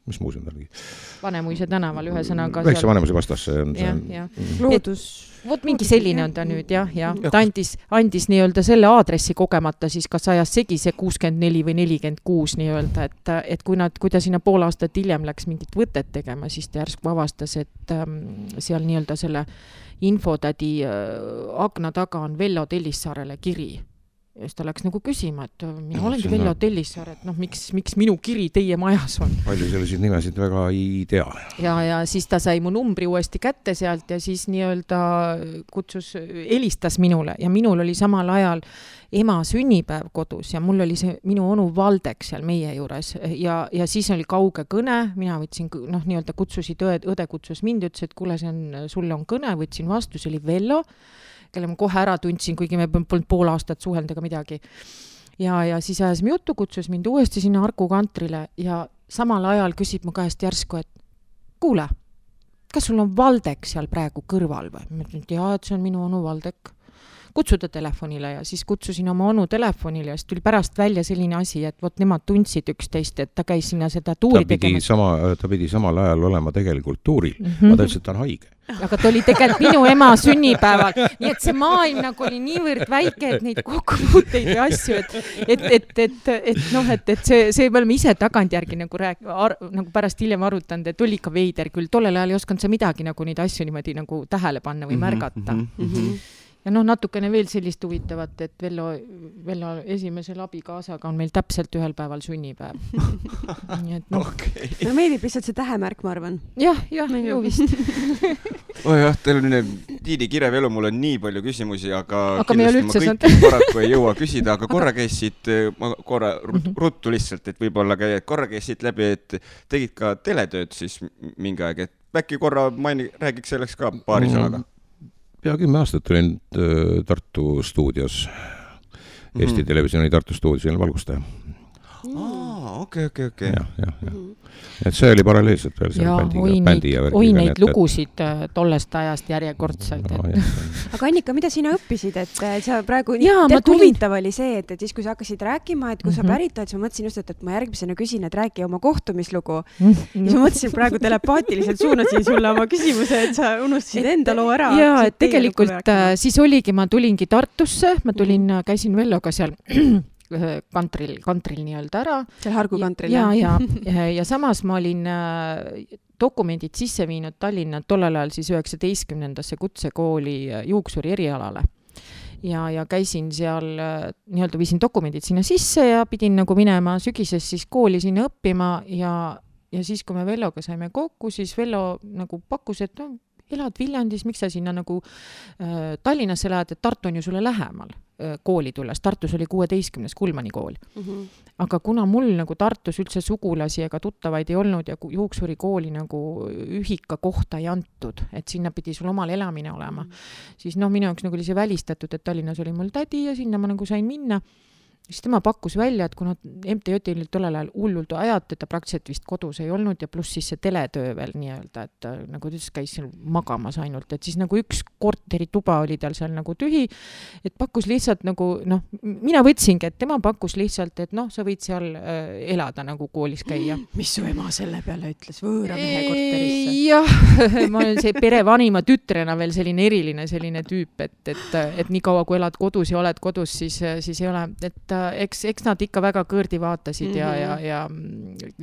Mis muuseum ta oligi? Vanemuise tänaval ühesõnaga. Väikse Vanemuise vastas. Loodus. Vot mingi selline on ta nüüd, jah. Ta andis nii-öelda selle aadressi kogemata, siis kas ajas segi see 64 või 46 nii-öelda, et kui ta sinna pool aastat hiljem läks mingit võtet tegema, siis ta järsku avastas, et seal nii-öelda selle infotädi akna taga on Vello Tellissaarele kiri. ja siis ta läks nagu küsima, et mina olengi Vello Tellissaar, et miks minu kiri teie majas on. Palju selliseid nimesid väga ei tea. Ja siis ta sai mu numbri uuesti kätte sealt ja siis nii-öelda helistas minule ja minul oli samal ajal ema sünnipäev kodus ja mul oli see minu onu Valdek seal meie juures ja siis oli kauge kõne, mina võtsin, nii-öelda kutsusid õde kutsus mind, ütles, et kuule, sulle on kõne, võtsin vastu, see oli Vello, kelle ma kohe ära tundsin, kuigi me polnud pool aastat suhelnud ega midagi. Ja siis ajasime juttu, kutsus mind uuesti sinna Arku kantrile ja samal ajal küsib mu käest järsku, et kuule, kas sul on Valdek seal praegu kõrval või? Ma ütlen, et jaa, et see on minu onu Valdek. Kutsuda telefonile ja siis kutsusin oma onu telefonile ja siis tuli pärast välja selline asi, et nemad tundsid üksteist, et ta käis sinna seda tuuri tegemas. Ta pidi samal ajal olema tegelikult tuuril. Ma ta ütles, et ta on haige. Aga ta oli tegelikult minu ema sünnipäeval. Nii et see maailm nagu oli niivõrd väike, et neid kokkupuuteid ja asju, et see me oleme ise tagantjärgi nagu pärast hiljem arutanud, et oli ikka veider küll. Tollel ajal ei osanud sa midagi nagu neid asju niimoodi nagu tähele panna või märgata. Ja natukene veel sellist huvitavat, et Vello esimesel abikaasaga on meil täpselt ühel päeval sünnipäev. Okay. No meeldib lihtsalt see tähemärk, ma arvan. Jah, ju vist. Jah, teil on Tiidi kirev elu, mul on nii palju küsimusi, aga kindlasti ma kõiki paraku ei jõua küsida, aga korra käisid, ruttu lihtsalt, et võib-olla korra käisid läbi, et tegid ka teletööd siis mingi aeg, et äkki korra räägiks selleks ka paari sõnaga. Pea 10 aastat olin Tartu stuudios, Eesti Televisiooni Tartu stuudios valgustaja. Okei. Ja. Et see oli paralleelselt veel seal bändi ja värgiga. Oi neid lugusid tollest ajast järjekordselt. Aga Annika, mida sina õppisid, et sa praegu huvitav oli see, et siis kui sa hakkasid rääkima, et kui sa pärit oled, siis ma mõtlesin just, et ma järgmisena küsin, et räägi oma kohtumislugu. Ja siis ma mõtlesin praegu telepaatiliselt suunasin sulle oma küsimuse, et sa unustasid enda loo ära. Ja, et tegelikult siis oligi, ma tulingi Tartusse, käisin Velloga seal kantril nii-öelda ära. Seal Hargu kantril. Ja samas ma olin dokumendid sisse viinud Tallinna tollel ajal siis 19. kutsekooli juuksuri erialale. Ja käisin seal, nii-öelda viisin dokumendid sinna sisse ja pidin nagu minema sügises siis kooli sinna õppima ja siis, kui me Velloga saime kokku, siis Vello nagu pakkus, et elad Viljandis, miks sa sinna nagu Tallinnasse lähed, et Tartu on ju sulle lähemal kooli tulles. Tartus oli 16. Kulmani kool. Aga kuna mul nagu Tartus üldse sugulasi ega tuttavaid ei olnud ja juuksuri kooli nagu ühika kohta ei antud, et sinna pidi sul omal elamine olema, siis minu jaoks nagu oli see välistatud, et Tallinnas oli mul tädi ja sinna ma nagu sain minna. Siis tema pakkus välja, et kuna MTJ oli tollel ajal hullult ajad, et ta praktiliselt vist kodus ei olnud ja pluss siis see teletöö veel nii-öelda, et nagu ta käis seal magamas ainult, et siis nagu üks korterituba oli tal seal nagu tühi, et pakkus lihtsalt nagu, mina võtsingi, et tema pakkus lihtsalt, et sa võid seal elada nagu koolis käia. Mis su ema selle peale ütles võõra mehe korterisse? Jah, ma olen see pere vanima tütrena veel selline eriline selline tüüp, et nii kaua kui elad kodus ja oled kodus, siis ei ole, et eks nad ikka väga kõõrdi vaatasid ja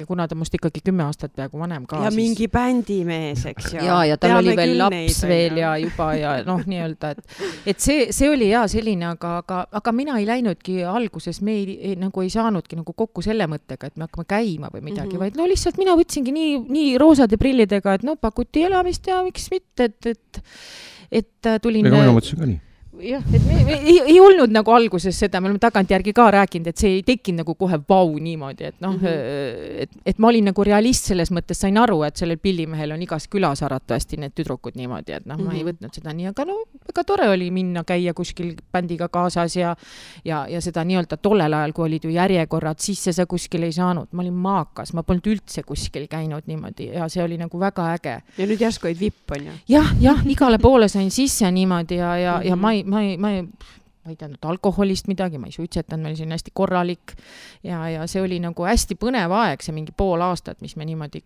kuna ta must ikkagi 10 aastat peaaegu vanem ka. Ja mingi bändimees, eks ju. Ja tal oli veel laps veel ja juba ja nii-öelda, et see oli selline, aga mina ei läinudki alguses, me nagu ei saanudki nagu kokku selle mõttega, et me hakkame käima või midagi, vaid lihtsalt mina võtsingi nii roosade prillidega, et pakuti elamist ja miks mitte, et tulin... Ega mina mõtlesin ka nii. Jah, et ei olnud nagu alguses seda, me oleme tagantjärgi ka rääkinud, et see ei tekkinud nagu kohe vau niimoodi, et ma olin nagu realist selles mõttes, sain aru, et sellel pillimehel on igas külas aratavasti need tüdrukud niimoodi, et ma ei võtnud seda nii, aga väga tore oli minna käia kuskil bändiga kaasas ja seda nii-öelda tollel ajal, kui olid ju järjekorrad, sisse sa kuskil ei saanud, ma olin maakas, ma polnud üldse kuskil käinud niimoodi ja see oli nagu väga äge. Ja nüüd järsku olid vipp, on ju? Jah, igale poole sain sisse niimoodi ja ma ei teadnud alkoholist midagi, ma ei suitsetanud, ma olin hästi korralik ja see oli nagu hästi põnev aeg, see mingi pool aastat, mis me niimoodi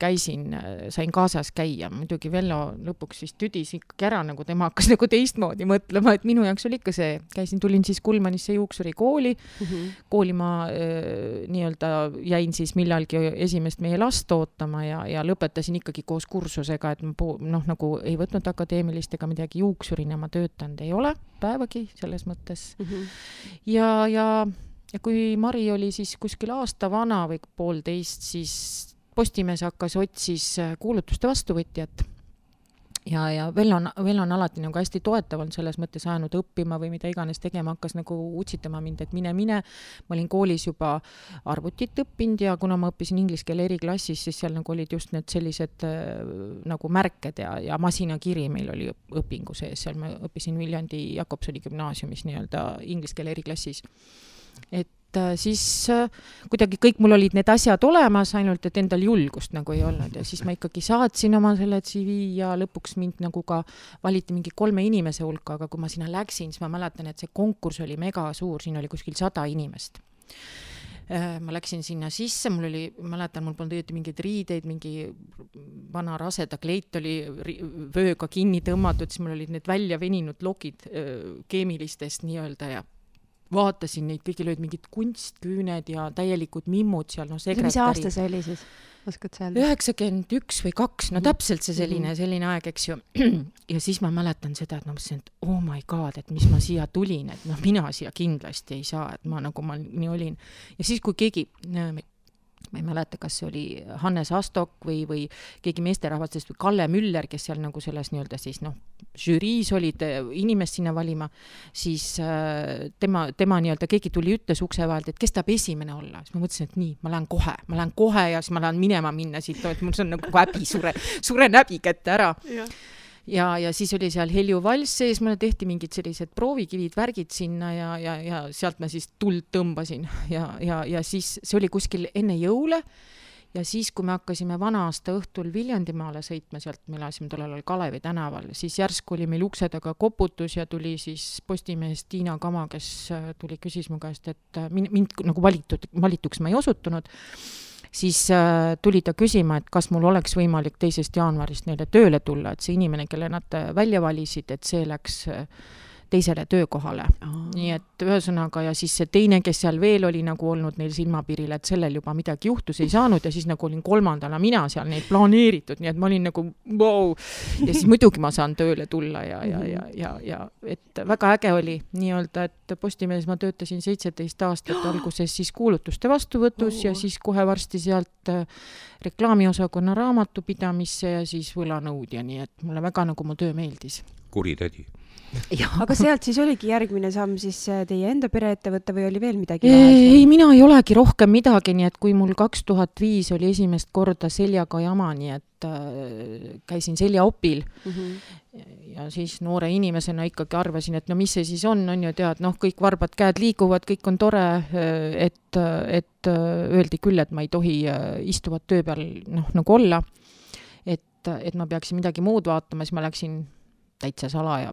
sain kaasas käia. Muidugi Vello lõpuks siis tüdis ikkagi ära, nagu tema hakkas nagu teistmoodi mõtlema, et minu jaoks oli ikka see, tulin siis Kulmanisse juuksuri kooli, kooli ma nii-öelda jäin siis millalgi esimest meie last ootama ja lõpetasin ikkagi koos kursusega, et ma nagu ei võtnud akadeemilist ega midagi juuksurina ma töötanud ei ole päevagi selles mõttes. Ja kui Mari oli siis kuskil aasta vana või 1,5, siis Postimees otsis kuulutuste vastuvõtjat ja Vello on alati nagu hästi toetav on selles mõttes ajanud õppima või mida iganes tegema, hakkas nagu utsitama mind, et mine. Ma olin koolis juba arvutit õppinud ja kuna ma õppisin inglise keele eriklassis, siis seal nagu olid just need sellised nagu märked ja masinakiri meil oli õpingu sees, seal ma õppisin Viljandi Jakobsoni gümnaasiumis nii-öelda inglise keele eriklassis. Et siis kuidagi kõik mul olid need asjad olemas, ainult et endal julgust nagu ei olnud ja siis ma ikkagi saatsin oma selle CV ja lõpuks mind nagu ka valiti mingi 3 inimese hulka, aga kui ma sinna läksin, siis ma mäletan, et see konkurss oli mega suur, siin oli kuskil 100 inimest. Ma läksin sinna sisse, mul polnud õieti mingeid riideid, mingi vana raseda kleit oli vööga kinni tõmmatud, siis mul olid need välja veninud lokid keemilistest nii-öelda ja vaatasin neid, kõigil olid mingid kunstküüned ja täielikud mimmud seal, sekretäri. Mis aasta see oli siis? Oskad sa öelda? 91 või 2, täpselt see selline aeg, eks ju. Ja siis ma mäletan seda, et ma mõtlesin, et oh my god, et mis ma siia tulin, et mina siia kindlasti ei saa, et ma nii olin. Ja siis, kui keegi, ma ei mäleta, kas see oli Hannes Astok või keegi meesterahvastest või Kalle Müller, kes seal nagu selles nii-öelda siis žüriis olid inimest sinna valima, siis tema nii-öelda keegi tuli ütles ukse vahelt, et kes tahab esimene olla. Siis ma mõtlesin, et nii, ma lähen kohe ja siis ma lähen minna siit, et mul see on nagu häbi, suren häbi kätte ära. Ja siis oli seal Helju Valss sees, mulle tehti mingid sellised proovikivid, värgid sinna ja sealt ma siis tuld tõmbasin ja siis see oli kuskil enne jõule ja siis, kui me hakkasime vana-aasta õhtul Viljandimaale sõitma, sealt me elasime tollel Kalevi tänaval, siis järsku oli meil ukse taga koputus ja tuli siis Postimehest Tiina Kama, kes tuli küsis mu käest, et mind nagu valituks ma ei osutunud. Siis tuli ta küsima, et kas mul oleks võimalik 2. jaanuarist neile tööle tulla, et see inimene, kelle nad välja valisid, et see läks teisele töökohale. Nii et ühesõnaga ja siis see teine, kes seal veel oli nagu olnud neil silmapiiril, et sellel juba midagi juhtus ei saanud ja siis nagu olin 3. mina seal neid planeeritud, nii et ma olin nagu wow. Ja siis muidugi ma saan tööle tulla ja et väga äge oli nii-öelda, et Postimehes ma töötasin 17 aastat alguses siis kuulutuste vastuvõtus ja siis kohe varsti sealt reklaamiosakonna raamatupidamisse ja siis võlanõudja, nii et mulle väga nagu mu töö meeldis. Kuritädi. Aga sealt siis oligi järgmine samm siis teie enda pereettevõtte või oli veel midagi? Ei, mina ei olegi rohkem midagi, nii et kui mul 2005 oli esimest korda seljaga jama, nii et käisin seljaopil ja siis noore inimesena ikkagi arvasin, et no mis see siis on ju tead, kõik varbad käed liiguvad, kõik on tore, et öeldi küll, et ma ei tohi istuvat töö peal nagu olla, et ma peaksin midagi muud vaatama, siis ma läksin täitsa salaja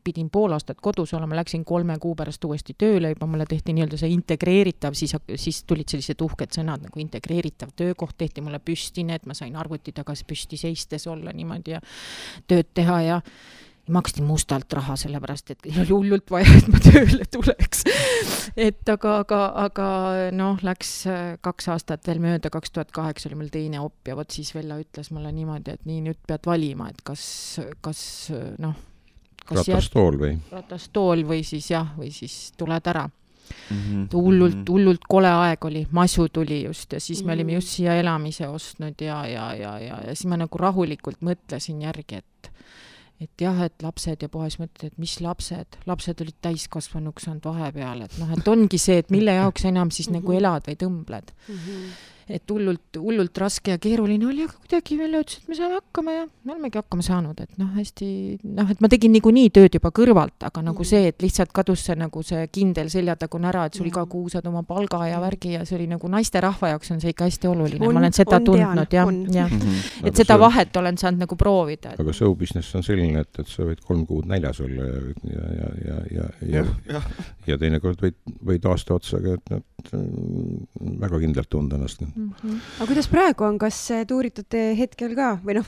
pidin 5 aastat kodus olema, läksin 3 kuu pärast uuesti tööle, juba mulle tehti nii-öelda see integreeritav, siis tulid sellised uhked sõnad nagu integreeritav töökoht, tehti mulle püstine, et ma sain arvuti tagas püsti seistes olla niimoodi ja tööd teha ja maksti mustalt raha, sellepärast, et oli hullult vaja, et ma tööle tuleks. Et aga läks 2 aastat veel mööda, 2008 oli mul teine op ja võt siis Vella ütles mulle niimoodi, et nii nüüd pead valima, et kas ratastool või siis tuled ära. Hullult kole aeg oli, masu tuli just ja siis me olime just siia elamise ostnud ja siis ma nagu rahulikult mõtlesin järgi, et jah, et lapsed ja puhas mõtled, et mis lapsed olid täiskasvanuks saanud vahepeal, et ongi see, et mille jaoks enam siis nagu elad või tõmbled. Et hullult raske ja keeruline oli, aga kuidagi veel ütles, et me saame hakkama ja me olemegi hakkama saanud, et hästi, et ma tegin niikuinii tööd juba kõrvalt, aga nagu see, et lihtsalt kadus see nagu see kindel seljatagune ära, et sul iga kuu saad oma palga ja värgi ja see oli nagu naiste rahva jaoks on see ikka hästi oluline, ma olen seda tundnud ja et seda vahet olen saanud nagu proovida. Aga show business on selline, et sa võid 3 kuud näljas olla ja teinekord võid aasta otsaga, et väga kindlalt tunda ennast. Aga kuidas praegu on, kas tuuritate hetkel ka või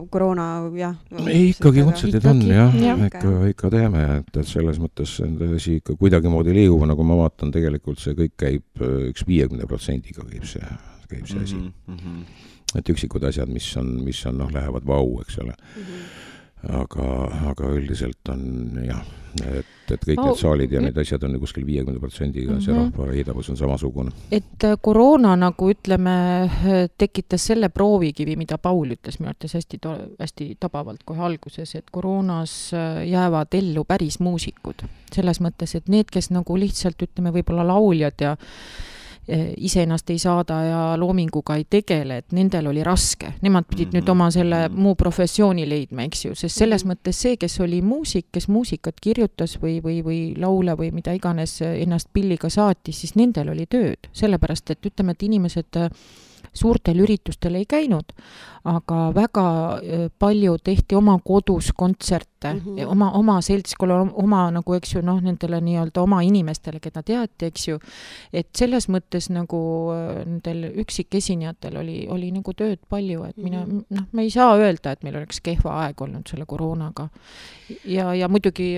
koroona jah? Ei, ikkagi kontserdid on ikka teeme, et selles mõttes see ikka kuidagimoodi liigub, nagu ma vaatan, tegelikult see kõik käib üks 50%-ga käib see asi. Et üksikud asjad, mis on lähevad vau, eks ole. aga üldiselt on jah, et kõik need saalid ja need asjad on kuskil 50%-ga, see rahva heidavus on samasugune. Et koroona nagu ütleme, tekitas selle proovikivi, mida Paul ütles minu arvates hästi tabavalt kohe alguses, et koroonas jäävad ellu päris muusikud. Selles mõttes, et need, kes nagu lihtsalt ütleme võib-olla lauljad ja ise ennast ei saada ja loominguga ei tegele, et nendel oli raske. Nemad pidid nüüd oma selle muu professiooni leidma, eks ju, sest selles mõttes see, kes oli muusik, kes muusikat kirjutas või laule või mida iganes ennast pilliga saatis, siis nendel oli tööd. Sellepärast, et ütleme, et inimesed suurtel üritustel ei käinud, aga väga palju tehti oma kodus kontserte, oma seltskonna, oma nagu, eks ju, nendele nii-öelda oma inimestele, keda teati, eks ju, et selles mõttes nagu nendel üksikesinejatel oli nagu tööd palju, et me ei saa öelda, et meil oleks kehva aeg olnud selle koroonaga. Ja muidugi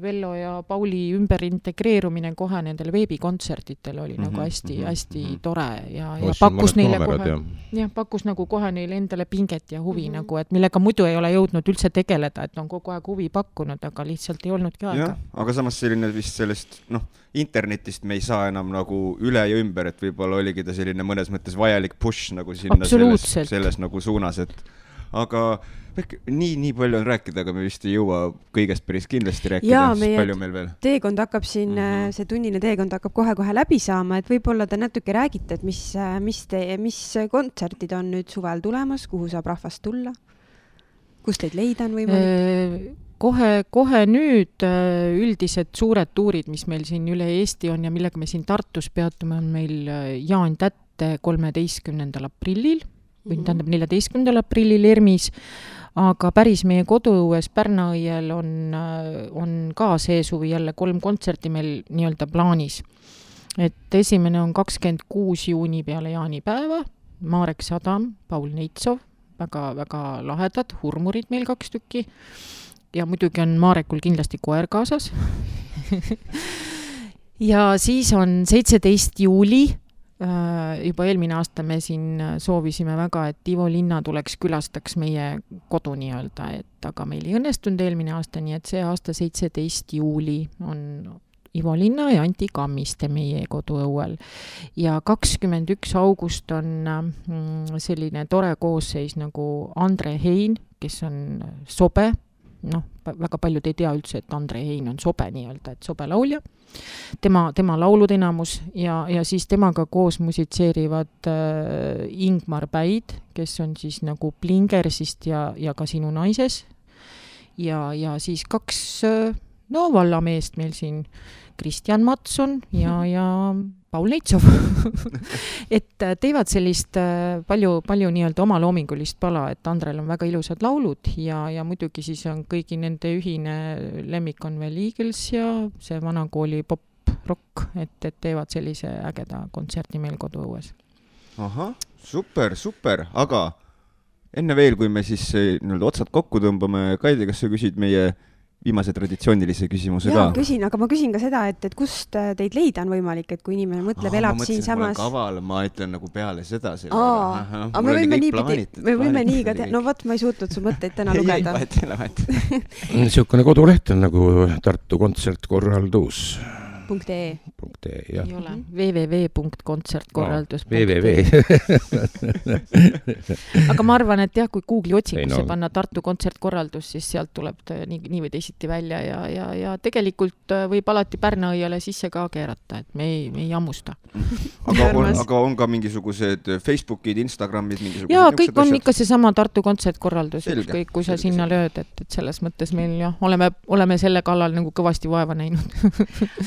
Vello ja Pauli ümber integreerumine kohe nendel veebikontsertitel oli nagu hästi tore ja pakkus neile pakkus nagu kohe neile endale pinget ja huvi nagu, et millega muidu ei ole jõudnud üldse tegeleda, et on kogu aeg huvi pakkunud, aga lihtsalt ei olnudki aega. Aga samas selline vist sellest, internetist me ei saa enam nagu üle ja ümber, et võib-olla oligi ta selline mõnes mõttes vajalik push nagu sinna selles nagu suunas, et aga nii palju on rääkida, aga me vist ei jõua kõigest päris kindlasti rääkida, palju meil veel. Teekond hakkab siin, see tunnine teekond hakkab kohe läbi saama, et võib-olla te natuke räägite, et mis kontserdid on nüüd suvel tulemas, kuhu saab rahvast tulla, kus teid leida on võimalik? Kohe nüüd üldised suured tuurid, mis meil siin üle Eesti on ja millega me siin Tartus peatume, on meil Jaan Tätte 13. aprillil, või tähendab 14. aprillil ERMis, aga päris meie koduõues Pärnaõiel on ka see suvi jälle 3 kontserti meil nii-öelda plaanis. Et esimene on 26 juuni peale jaanipäeva, Marek Sadam, Paul Neitsov, väga lahedad, hurmurid meil 2 tükki ja muidugi on Marekul kindlasti koer kaasas. Ja siis on 17. juuli, juba eelmine aasta me siin soovisime väga, et Ivo Linna tuleks külastaks meie kodu nii-öelda, et aga meil ei õnnestunud eelmine aasta, nii et see aasta 17. juuli on Ivo Linna ja Anti Kammiste meie koduõuel. Ja 21. august on selline tore koosseis nagu Andre Hein, kes on sobe, väga paljud ei tea üldse, et Andre Hein on sobe nii-öelda, et sobe laulja. Tema laulud enamus ja siis temaga koos musitseerivad Ingmar Päid, kes on siis nagu Plingersist ja ka Sinu naises. Ja siis 2 vallameest meil siin, Kristjan Matson ja Paul Neitsov. Et teevad sellist palju nii-öelda oma loomingulist pala, et Andrel on väga ilusad laulud ja muidugi siis on kõigi nende ühine lemmik on veel Eagles ja see vanakooli pop-rock, et teevad sellise ägeda kontserti meil koduõues. Ahah, super, aga enne veel, kui me siis otsad kokku tõmbame, Kaidi, kas sa küsid meie viimase traditsioonilise küsimuse ka? Küsin, aga ma küsin ka seda, et kust teid leida on võimalik, et kui inimene mõtleb, elab siin samas... Ma kaval, ma ütlen nagu peale seda. Aga me võime nii ka teha. No võt, ma ei suutnud su mõtteid täna lugeda. Niisugune koduleht on nagu Tartu kontsertkorraldus. .ee. Jah. Ei ole. www.kontsertkorraldus.ee. Aga ma arvan, et jah, kui Google'i otsingusse panna Tartu kontsertkorraldus, siis sealt tuleb nii või teisiti välja ja tegelikult võib alati Pärnaõiele sisse ka keerata, et me ei jammusta. Aga on ka mingisugused Facebookid, Instagramid, mingisugused... Jaa, kõik on ikka see sama Tartu kontsertkorraldus, ükskõik kui sa sinna lööd, et selles mõttes meil oleme selle kallal nagu kõvasti vaeva näinud.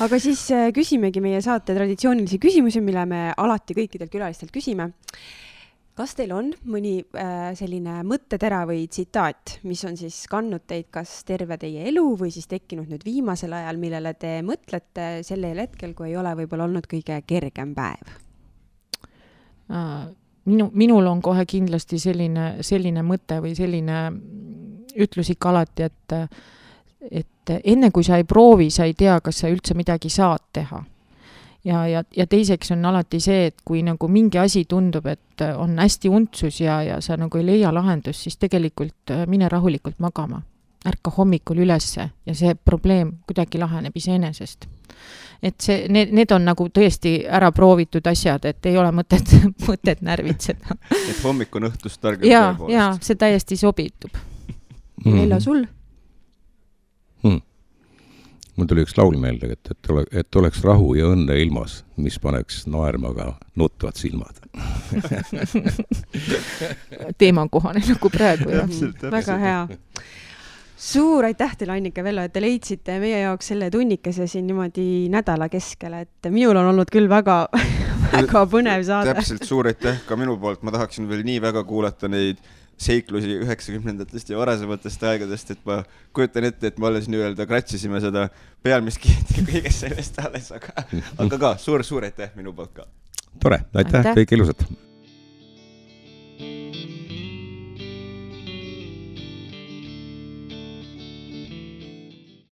Aga siis küsimegi meie saate traditsioonilisi küsimusi, mille me alati kõikidelt külalistelt küsime. Kas teil on mõni selline mõttetera või tsitaat, mis on siis kandnud teid kas terve teie elu või siis tekkinud nüüd viimasel ajal, millele te mõtlete sellel hetkel, kui ei ole võib-olla olnud kõige kergem päev? Minul on kohe kindlasti selline mõte või selline ütlus ikka alati, et enne kui sa ei proovi, sa ei tea, kas sa üldse midagi saad teha. Ja teiseks on alati see, et kui nagu mingi asi tundub, et on hästi untsus ja sa nagu ei leia lahendust, siis tegelikult mine rahulikult magama. ärka hommikul ülesse ja see probleem kuidagi laheneb iseenesest. Et see, need on nagu tõesti ära proovitud asjad, et ei ole mõtet närvitseda. Et hommik on õhtust targem tõepoolest. Ja, see täiesti sobitub. Vello, sul? Mul tuli üks laul meelde, et oleks rahu ja õnne ilmas, mis paneks naermaga nutvad silmad. Teemakohane nagu praegu. Väga hea. Suur aitäh teile, Annika, Vello, et te leidsite meie jaoks selle tunnikese siin niimoodi nädala keskel, et minul on olnud küll väga põnev saade. Täpselt, suur aitäh ka minu poolt. Ma tahaksin veel nii väga kuulata neid seiklusi 90-ndatest ja varasematest aegadest, et ma kujutan ette, et me alles nii-öelda kratsisime seda pealmiskiit ja kõigest sellest alles, aga ka suur aitäh minu poolt ka. Tore, aitäh. Kõik ilusat.